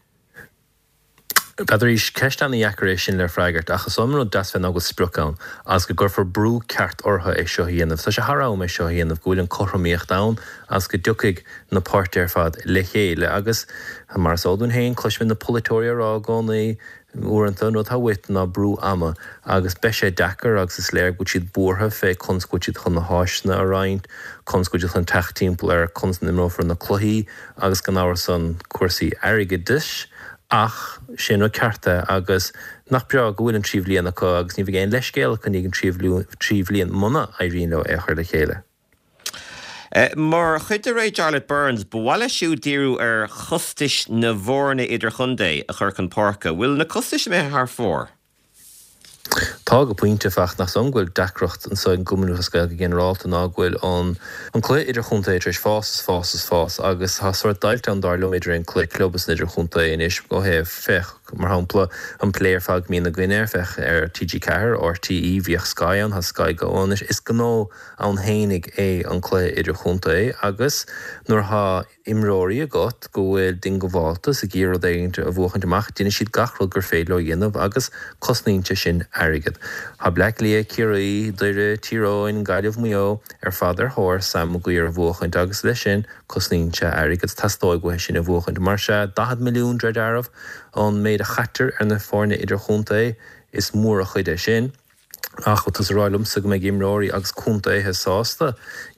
N'fheadar arís, ceist ana-dheacair é sin le freagairt, ach is dóigh liom an rud deas fé ná go bhfuil sprioc ann, agus go gcuirfear brú ceart orthu é seo a dhéanamh. Tá sé thar am é seo a dhéanamh, go bhfuil an cothromaíocht ann agus go dtiocfaidh na páirtithe ar fad le chéile. Agus, mar is eol dúinn féin, cloisimid na polaiteoirí á rá i gcónaí, Uaireanta, an rud atá uait ná brú ama, agus beidh sé deacair agus is léir go bhfuil siad buartha fé conas go bhfuil siad chun na háiseanna a roinnt, conas go bhfuil siad chun teacht timpeall ar conas a n-imreofar na cluichí agus gan amhras ann cúrsaí airgeadais ach sé an rud ceart é agus nach breá go bhfuil an trí bhliain acu agus ní bheidh aon leithscéal acu i ndiaidh an trí bhliain muna éiríonn leo é a chur le chéile. Mar chuid de ré Jarlath Burns, ba mhaith leis siúd díriú ar chostais na bhfoirne idirchontae a chur chun páirce. Bhfuil na costais imithe thar fóir? Tá, go pointe, ach nach dóigh liom go bhfuil deacracht anseo ag an gCumann Lúthchleas Gael go ginearálta ná go bhfuil an an cluiche idirchontae tar éis fás is fás is fás agus tá sórt deighilt ann dar liom idir an cluiche club is an idirchontae anois ó thaobh, féach, mar shampla, an plé ar fad go mbíonn againn air, féach ar TG4, RTÉ, bhíodh Sky ann, tá Sky Go ann anois. Is gnó ann fhéinig é an cluiche idirchontae agus nuair atá imreoirí agat go bhfuil diongbháilte is ag iarraidh rud éigin a bhuachaint amach, déanfaidh siad gach rud gur féidir leo a dhéanamh agus cosnaíonn sé sin airgead. Tá Bleá Cliath, Ciarraí, Doire, Tír Eoghain, Gaillimh, Maigh Eo ar fad ar thóir Sam Maguire a bhuachaint agus leis sin cosnaíonn sé airgead. Teastóidh uathu sin a bhuachaint. Mar sea, 40 milliún de réir dealraimh an méid a chaitear ar na foirne idirchontae, is mór an chuid é sin. Ach tá tú ag rá liomsa go mbeidh imreoirí agus contaetha sásta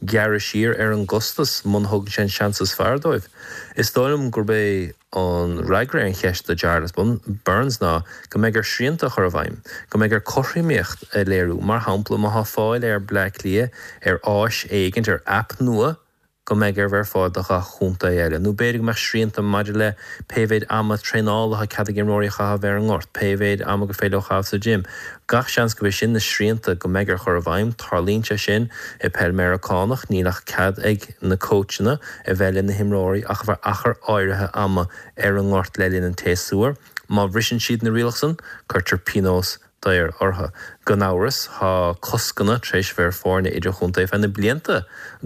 gearradh siar ar an gcostas muna thugann sé an seans is fearr dóibh? Is dóigh liom gurb é an fhreagra ar an cheist do Jarlath Burns ná go mbeidh air srianta a chur i bhfeidhm, go mbeidh air cothromaíocht a léiriú. Mar shampla, má tá fáil ar Bleá Cliath ar áis éigint, ar aip nua, go mbeidh air bheith ar fáil do ghach chontae eile, nó b'fhéidir go mbeadh srianta maidir le pé mhéid ama traenála atá cead ag imreoirí a chaitheamh ar an ngort, pé mhéid ama gur féidir leo a chaitheamh sa gym. Gach seans gurb é sin na srianta go mbeidh air chur i bhfeidhm. Tarlaíonn sé sin i peil Meiriceánach, níl ach cead ag na cóitseanna a bheith le na himreoirí ach ar feadh achar áirithe ama ar an ngort le linn an tséasúir. Má bhriseann siad na rialacha san, cuirtear pionós daor orthu. Gan amhras, tá coscanna tar éis bheith ar foirne idirchontae feadh na blianta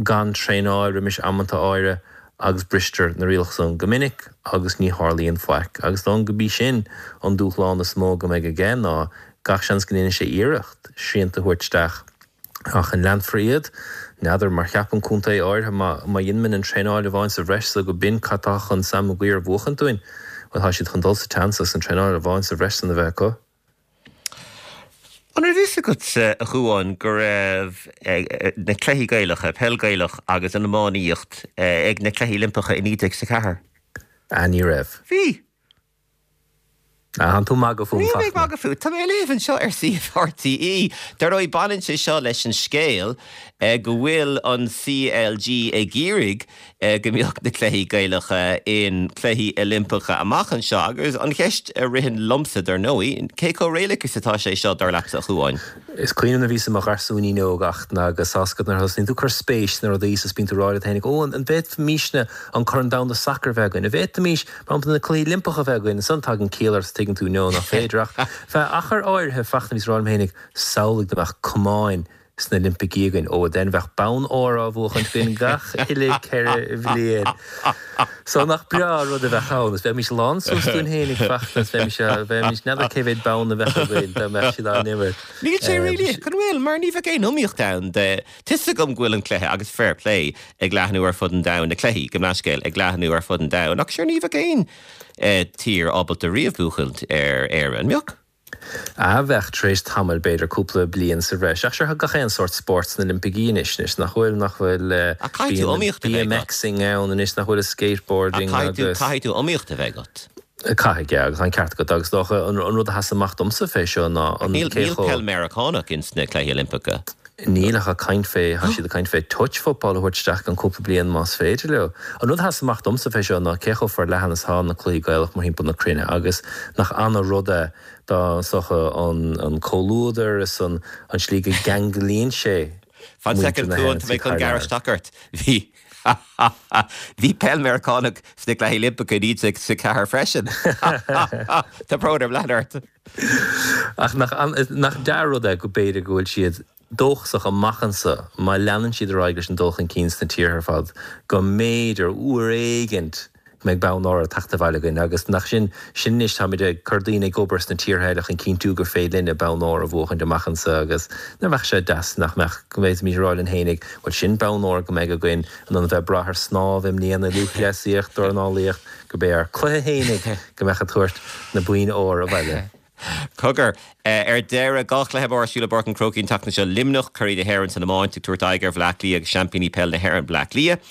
gan traenáil roimis amanta áirithe agus bristear na rialacha san go minic agus ní tharlaíonn faic. Agus is dóigh liom go b'í sin an dúshlán is mó go mbeidh aige ná gach seans go ndéanfaidh sé iarracht srianta a thabhairt isteach Ach an leanfar iad? N'fheadar, mar cheapann contae áirithe má má dheinimid an traenáil amháin sa bhreis so go b'in cad tá chun Sam Maguire a bhuachaint dúinn, bhuel tá siad chun dul sa tseans as an traenáil amháin sa bhreis san a bheith acu. An raibh fhios agatsa, a Chuáin, go raibh na cluichí Gaelacha, peil Gaelach agus an iománaíocht, ag na Cluichí Oilimpeacha i 1904? Ah, ní raibh. Bhí! Ah, tánn tú ag magadh fúm, Níl mé ag Fachtna. magadh fút. Tá mé ag léamh anseo ar suíomh RTÉ. Dar ndóigh, baineann sé seo leis an scéal go bhfuil an CLG ag iarraidh go mbeadh na cluichí Gaelacha in Cluichí Oilimpeacha amach anseo. Agus an cheist a ritheann liomsa, dar ndóigh, cé chomh réalaíoch is atá sé seo, dar leatsa, a Chuáin? Is cuimhin liom nuair a bhíos i mo gharsúinín óg Fhachtna agus tá's agat nuair a thosnaíonn tú ag cur spéis sna rudaí is bíonn tú ag rá leat féinig, ó, an bhféadfaimisne an Corn Domhanda Sacair a bheith againn? An bhféadfaimis, mar shampla, na Cluichí Oilimpeacha a bheith againn? Ansan tagann ciall ort is tuigeann tú, no, nach féidir. Ach feadh achar áirithe, Fachtna, bhíos ag rá liom féinig, samhlaigh dá mbeadh camáin sna Oilimpicí againn, ó, then bheadh bonn óir á bhuachaint againn gach uile 4 bhliain. So nach breá an rud a bheadh ann, is bheimis lán suas dúinn fhéinig, Fachtna, is bheimis, bheimis, n'fheadar cé mhéad bonn a bheadh againn dá mbeadh siad á n-imirt. Níl sé réalaíoch, an bhfuil? Mar ní bheadh aon iomaíocht ann de, tá 'fhios agam go bhfuil an cluiche, agus fair play, ag leathnú ar fud an domhain, na cluichí, gabh mo leithscéal, ag leathnú ar fud an domhain, ach sure ní bheadh aon tír ábalta riamh buachaint ar Éire, an mbeadh? Ah bheadh, tar éis tamaill, b'fhéidir cúpla bliain sa bhreis. Ach sure, tá gach aon sórt spóirt sna Oilimpicí anois, anois, nach bhfuil, nach bhfuil, Ach caithfidh tú bíonn iomaíocht a bheith agat. BMXing ann anois, nach bhfuil, is skateboarding Ach caithfidh tú, agus. caithfidh tú iomaíocht a bheith agat. Caithfidh, yeah, agus tá an ceart agat. Agus is dócha, an rud a sheas amach domsa fé seo ná Ach an níl, cé níl chomh. peil Meiriceánach ins na Cluichí Oilimpeacha. Níl ach ag caint fé, tá siad ag caint fé touch football a thabhairt isteach i gceann cúpla bliain más féidir leo. An rud a sheas amach domsa fé seo ná cé chomh forleathan is atá na cluichí Gaelach mórthimpeall na cruinne agus nach ana rud é dá is dócha an an comhluadar is an an slí go gceanglaíonn sé Fan muintir soicind na Cuan, hÉireann tá mé thar chun gearradh lear. isteach ort. Bhí Bhí peil Meiriceánach sna Cluichí Oilimpeacha i 1964 freisin. Tá brón orm leanúint ort. Ach nach, nach dea-rud é go b'fhéidir go bhfuil siad dóchasach amach anso, má leanann siad ar aghaidh leis an dul chun cinn sna tíortha ar fad, go mb'fhéidir, uair éigint, go mbeidh bonn óir ag teacht abhaile againn. Agus nach sin, sin anois, táimid ag cur daoine ag obair sna tíortha eile chun cinntiú gur féidir linne bonn óir a bhuachaint amach anso agus nach mbeadh sé deas nach mbeadh, go bhféadfaimis a rá linn fhéinig, bhuel sin bonn óir go mbeidh againn in ann a bheith ag brath ar snámh i mbliana, lúthchleasaíocht, dornálaíocht, gurb é ár cluiche fhéinig go mbeadh ag tabhairt na boinn óir abhaile. Cogar, ar deireadh, 2 chluiche mór ar siúl i bPáirc an Chrócaigh an tseachtain seo, Luimneach, curaidh na hÉireann san iomáint, ag tabhairt aghaidh ar Bhleá Cliath agus seaimpíní peile na hÉireann, Bleá Cliath,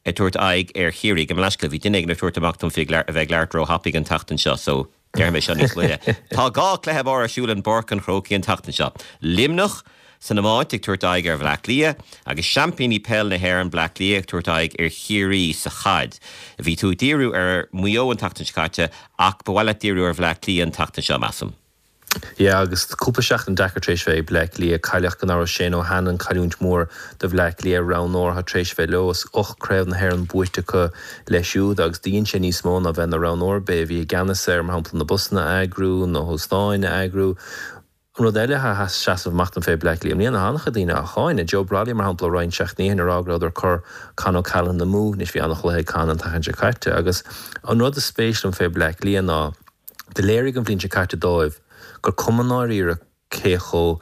ag tabhairt aghaidh ar Chiarraí. Gabh mo leithscéal, bhí duine éigin ag tabhairt amach dom faoi a bheith ag labhairt róthapaidh an tseachtain seo so déarfaidh mé seo níos moille. Tá 2 chluiche mór ar siúl in bPáirc an Chrócaigh an tseachtain seo, Luimneach, san iomáint ag tabhairt aghaidh ar Bhleá Cliath agus seaimpíní peile na hÉireann Bleá Cliath ag tabhairt aghaidh ar Chiarraí sa chaid. Bhí tú ag díriú ar Mhaigh Eo an tseachtain seo caite ach ba mhaith leat díriú ar Bhleá Cliath an tseachtain seo, measaim. Yeah agus cúpla seachtain deacair tar éis bheith ag Bleá Cliath. Cailleadh gan amhras Shane O'Hanlon, cailliúint mhór do Bhleá Cliath, roghnóir atá tar éis bheith leo is 8 craobh na hÉireann buaite acu leis siúd agus do dhein sé níos mó ná bheith ina roghnóir. B'é a bhí i gceannas ar, mar shampla, na busanna a eagrú, na hóstáin a eagrú. An rud eile atá ag seasamh amach dom fé Bleá Cliath i mbliana, tá an-chuid daoine á cháineadh. Joe Brolly, mar shampla, roinnt seachtainí ó shin ag rá go rabhadar ag cur Con O'Callaghan amú. Anois bhí an-chluiche ag Con an tseachtain seo caite. Agus an rud is spéis liom fé Bleá Cliath ná do léirigh an bhliain seo caite dóibh gur cuma i ndáiríre cé chomh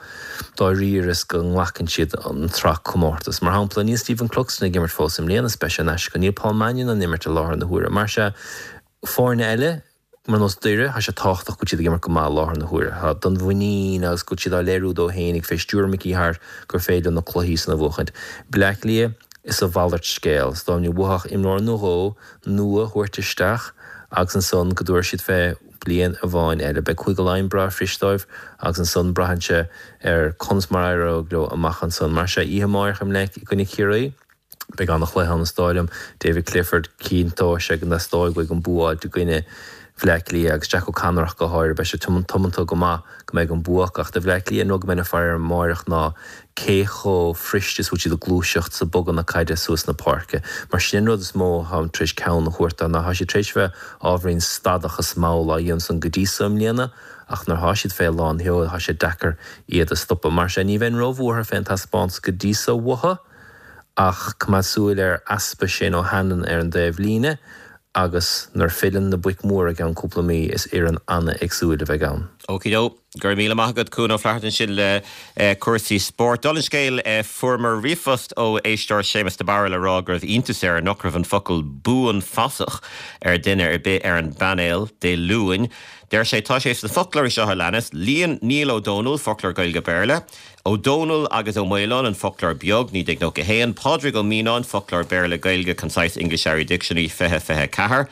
dáiríre is go nglacann siad an tsraith comórtas. Mar shampla, níl Stephen Cluxton ag imirt fós i mbliana is beidh sé in aisce. Níl Paul Mannion in ann imirt i láthair na huaire. Mar sea, foirne eile, Mar nós Doire, tá sé tábhachtach go bhfuil siad ag imirt go maith i láthair na huaire. Tá don mhuinín agus go bhfuil siad á léiriú dóibh fhéinig fé stiúir Mickey Harte gur féidir leo na cluichí san a bhuachaint. Bleá Cliath, is a mhalairt scéal. Is dá mba uathu imreoir nó dhó nua a thabhairt isteach agus ansan go dtabharfaidh siad fé bliain amháin eile. Beidh Cúige Laighean breá fuirist dóibh agus ansan braitheann sé ar conas mar a éireoidh leo amach ansan. Mar sea, oíche amáireach i gcoinne Chiarraí. Beidh an-chluiche ann is dóigh liom. David Clifford, cinnteoidh sé go dteastóidh uaidh an bua a fháilt i gcoinne Bhleá Cliath agus Jack O'Connor ach go háirithe. Beidh sé tiomanta go maith go mbeidh an bua acu. Ach do Bhleá Cliath, an rud go mbeinn ag faire air amáireach ná cé chomh fuirist is bhfuil siad ag gluaiseacht is ag bogadh na caide suas na páirce. Mar sin an rud is mó atáim tar éis ceann a thabhairt dó ná tá siad tar éis bheith ábhairín stadach is mall á dhéanamh san go dtí so i mbliana ach nuair atá siad fé lán sheoil tá sé deacair iad a stopadh. Mar sin ní bheinn róbhuartha fén taispeántas go dtí so uathu. Ach coimeád súil ar easpa Shane O'Hanlon ar an dtaobh líne agus nuair filleann na boic mhóra i gceann cúpla mí is fhoireann an-éagsúil a bheidh ann. Okey-do. Go raibh míle maith agat, Cuan Ó Flatharta ansin le cúrsaí spóirt. Dála an scéil, fuaireamar ríomhphost ó éisteoir Séamus de Barra le rá go raibh iontas air nach raibh an focal 'buanfasach' ar duine ar bith ar an bpainéal Dé Luain. Deir sé, tá sé sna foclóirí seo a leanas, Líon Niall Ó Dónaill, Foclóir Gaeilge-Béarla, Ó Dónaill agus Ó Maoláin, An Foclóir Beag, 1991, Pádraig Ó Mianáin, Foclóir Béarla-Gaeilge, Concise English-Irish Dictionary, 2024.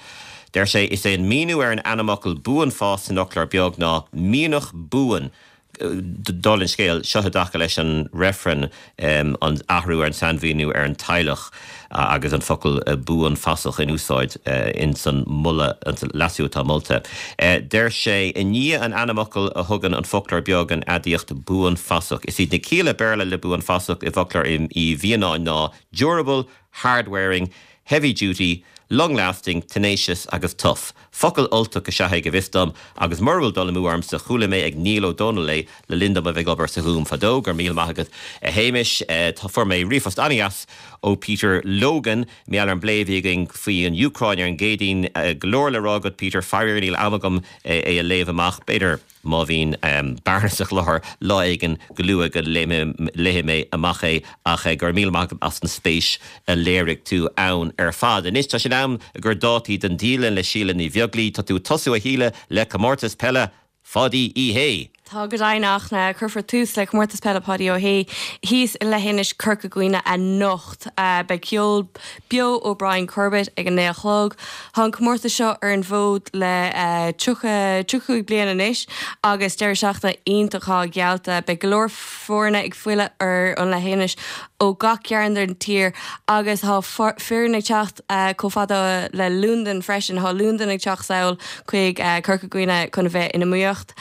Deir sé, Is é an míniú ar an ainmfhocal buanfas san fhoclóir beag ná mianach buan. Dála an scéil, seo i dtaca leis an reifreann, an athrú ar an sainmhíniú ar an teaghlach agus an focal buanfasach in úsáid ins an moladh, an leasú atá molta. Deir sé, i ndiaidh an ainmfhocail a thugann an foclóir beag an aidiacht buanfasach. Is iad na cialla Béarla le buanfasach i bhfoclóir Uí Mhianáin ná durable, hard-wearing, heavy duty, long lasting, tenacious agus tough. Focal Ultach is ea é go bhfios dom agus mura bhfuil dul amú ormsa chuala mé ag Niall Ó Dónaill é le linn dom a bheith ag obair sa Ghúm fadó. Go raibh míle maith agat a Shéamais. Fuair mé ríomhphost an-dheas ó Peter Logan mar gheall ar an bplé a bhí againn faoi an Úcráin ar an gCéadaoin. Go leor le rá agat Peter, faraor níl am agam é a léamh amach. B'fhéidir. Má bhíonn bearna sa chlár lá éigin go luath go léifidh mé amach é ach go raibh míle maith agat as an spéis a léirigh tú ann ar fad. Anois tá sé in am ag cur dátaí don dialann le Síle Ní Bheaglaoi. Tá tú ag tosú a Shíle le comórtas peile Pháidí Uí Shé! Tá go deimhin a Fhachtna. Cuirfear tús le Comórtas Peile Pháidí Ó Shé thíos i Leithinis Corca Dhuibhne anocht. Beidh ceol beo ó Brian Corbett ag a 9 a chlog. Tá an comórtas seo ar an bhfód le 30, 35 bliain anois agus deireadh seachtaine iontach atá geallta. Beidh go leor foirne ag filleadh ar an leithinis ó gach cearn den tír agus tá foireann ag teacht chomh fada le Londain freisin. Tá Londain ag teacht sall chuig Corca Dhuibhne chun a bheith in iomaíocht.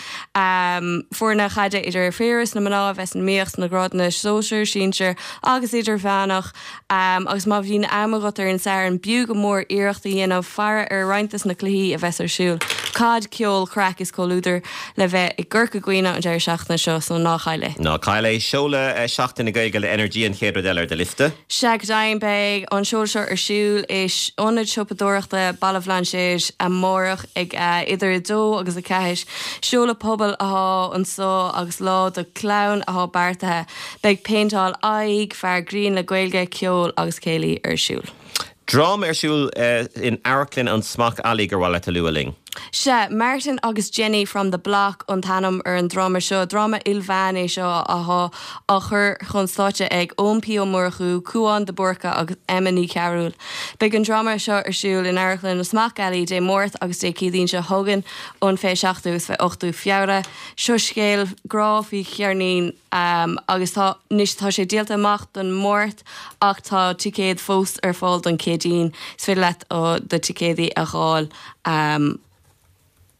Foirne chaide idir fir is na mná a bheas in iomaíocht sna grádanna sóisir, sinsir agus idirmheánach. Agus má bhíonn am agat ar an Satharn, b'fhiú go mór iarracht a dhéanamh faire ar roinnt des na cluichí a bheas ar siúl. Caid, ceol, craic is comhluadar le bheith i gCorca Dhuibhne an deireadh seachtaine seo, so ná caill é. Ná caill é. Seoladh Seachtain na Gaeilge le Energia an chéad rud eile ar do liosta. Sea, go deimhin, beidh an seoladh seo ar siúl i Ionad Siopadóireachta Baile Bhlainséir amárach ag idir 2 agus 4. Seoladh pobail atá anso agus lá do chlann atá beartaithe. Beidh péinteáil aghaidh, fear grinn le Gaeilge, ceol agus céilí ar siúl. Dráma ar siúl in Amharclann an Smock Alley gur mhaith leat a lua linn. Sea, Martin agus Jenny from the Block an t-ainm ar an dráma seo. Dráma ilmheán é seo atá á chur chun stáitse ag Eoin P Ó Murchú, Cúán de Búrca agus Emma Ní Chearúil. Beidh an dráma seo ar siúl in Amharclann an Smock Alley Dé Máirt agus Dé Céadaoin seo chugainn, an 27ú agus 28ú Feabhra. Seo scéal grá faoi cheirnín. Agus tá, anois tá sé díolta amach don Máirt ach tá ticéad fós ar fáil don Chéadaoin. Is féidir leat do ticéadaí a dh'fháil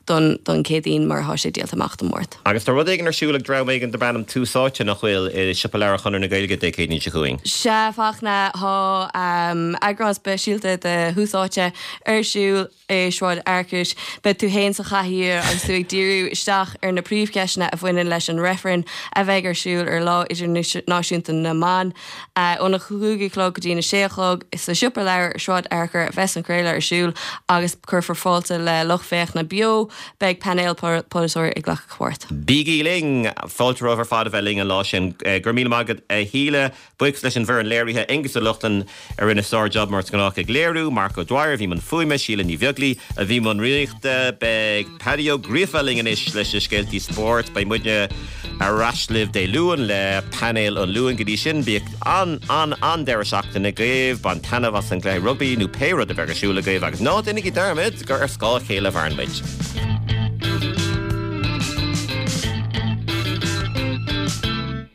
don don Chéadaoin mar tá sé díolta amach don Máirt. Agus tá rud éigin ar siúl ag dream éigin darb ainm Tús Áite, nach bhfuil, i Siopa Leabhar Chonradh na Gaeilge Dé Céadaoin seo chugainn? Sea, a Fhachtna, tá eagrán speisialta de Thús Áite ar siúl. i Sráid Fhearchair. Beidh tú fhéin sa chathaoir agus tú ag díriú isteach ar na príomhcheisteanna a bhaineann leis an reifreann a bheidh ar siúl ar Lá Idirnáisiúnta na mBan. Óna 5 a chlog go dtína 6 a chlog sa Siopa Leabhar i Sráid Fhearchair a bheas an craoladh ar siúl agus cuirfear fáilte le lucht féachana beo. Beidh painéal polaiteoirí ag glacadh páirt. Bígí linn! Fáilte romhaibh ar fad a bheith linn an lá sin. Go raibh míle maith agat a Shíle. Buíochas leis an bhfoireann léirithe, Aengus Ó Lochlainn a rinne sár-jab mar is gnách ag léiriú, Mark O'Dwyer a bhí i mbun fuaime, Síle Ní Bheaglaoi a bhí i mbun rúnaíochta. Beidh Paddy Ó Gríofa linn anois leis na scéaltaí spóirt. Beidh muidne ar ais libh Dé Luain le Painéal an Luain. Go dtí sin, bíodh an-an-an-deireadh seachtaine agaibh, bain taitneamh as an gcluiche rugbaí nó pé rud a bheidh ar siúl agaibh agus ná déanaigí dearmad gur ar scáth a chéile a mhaireann muid.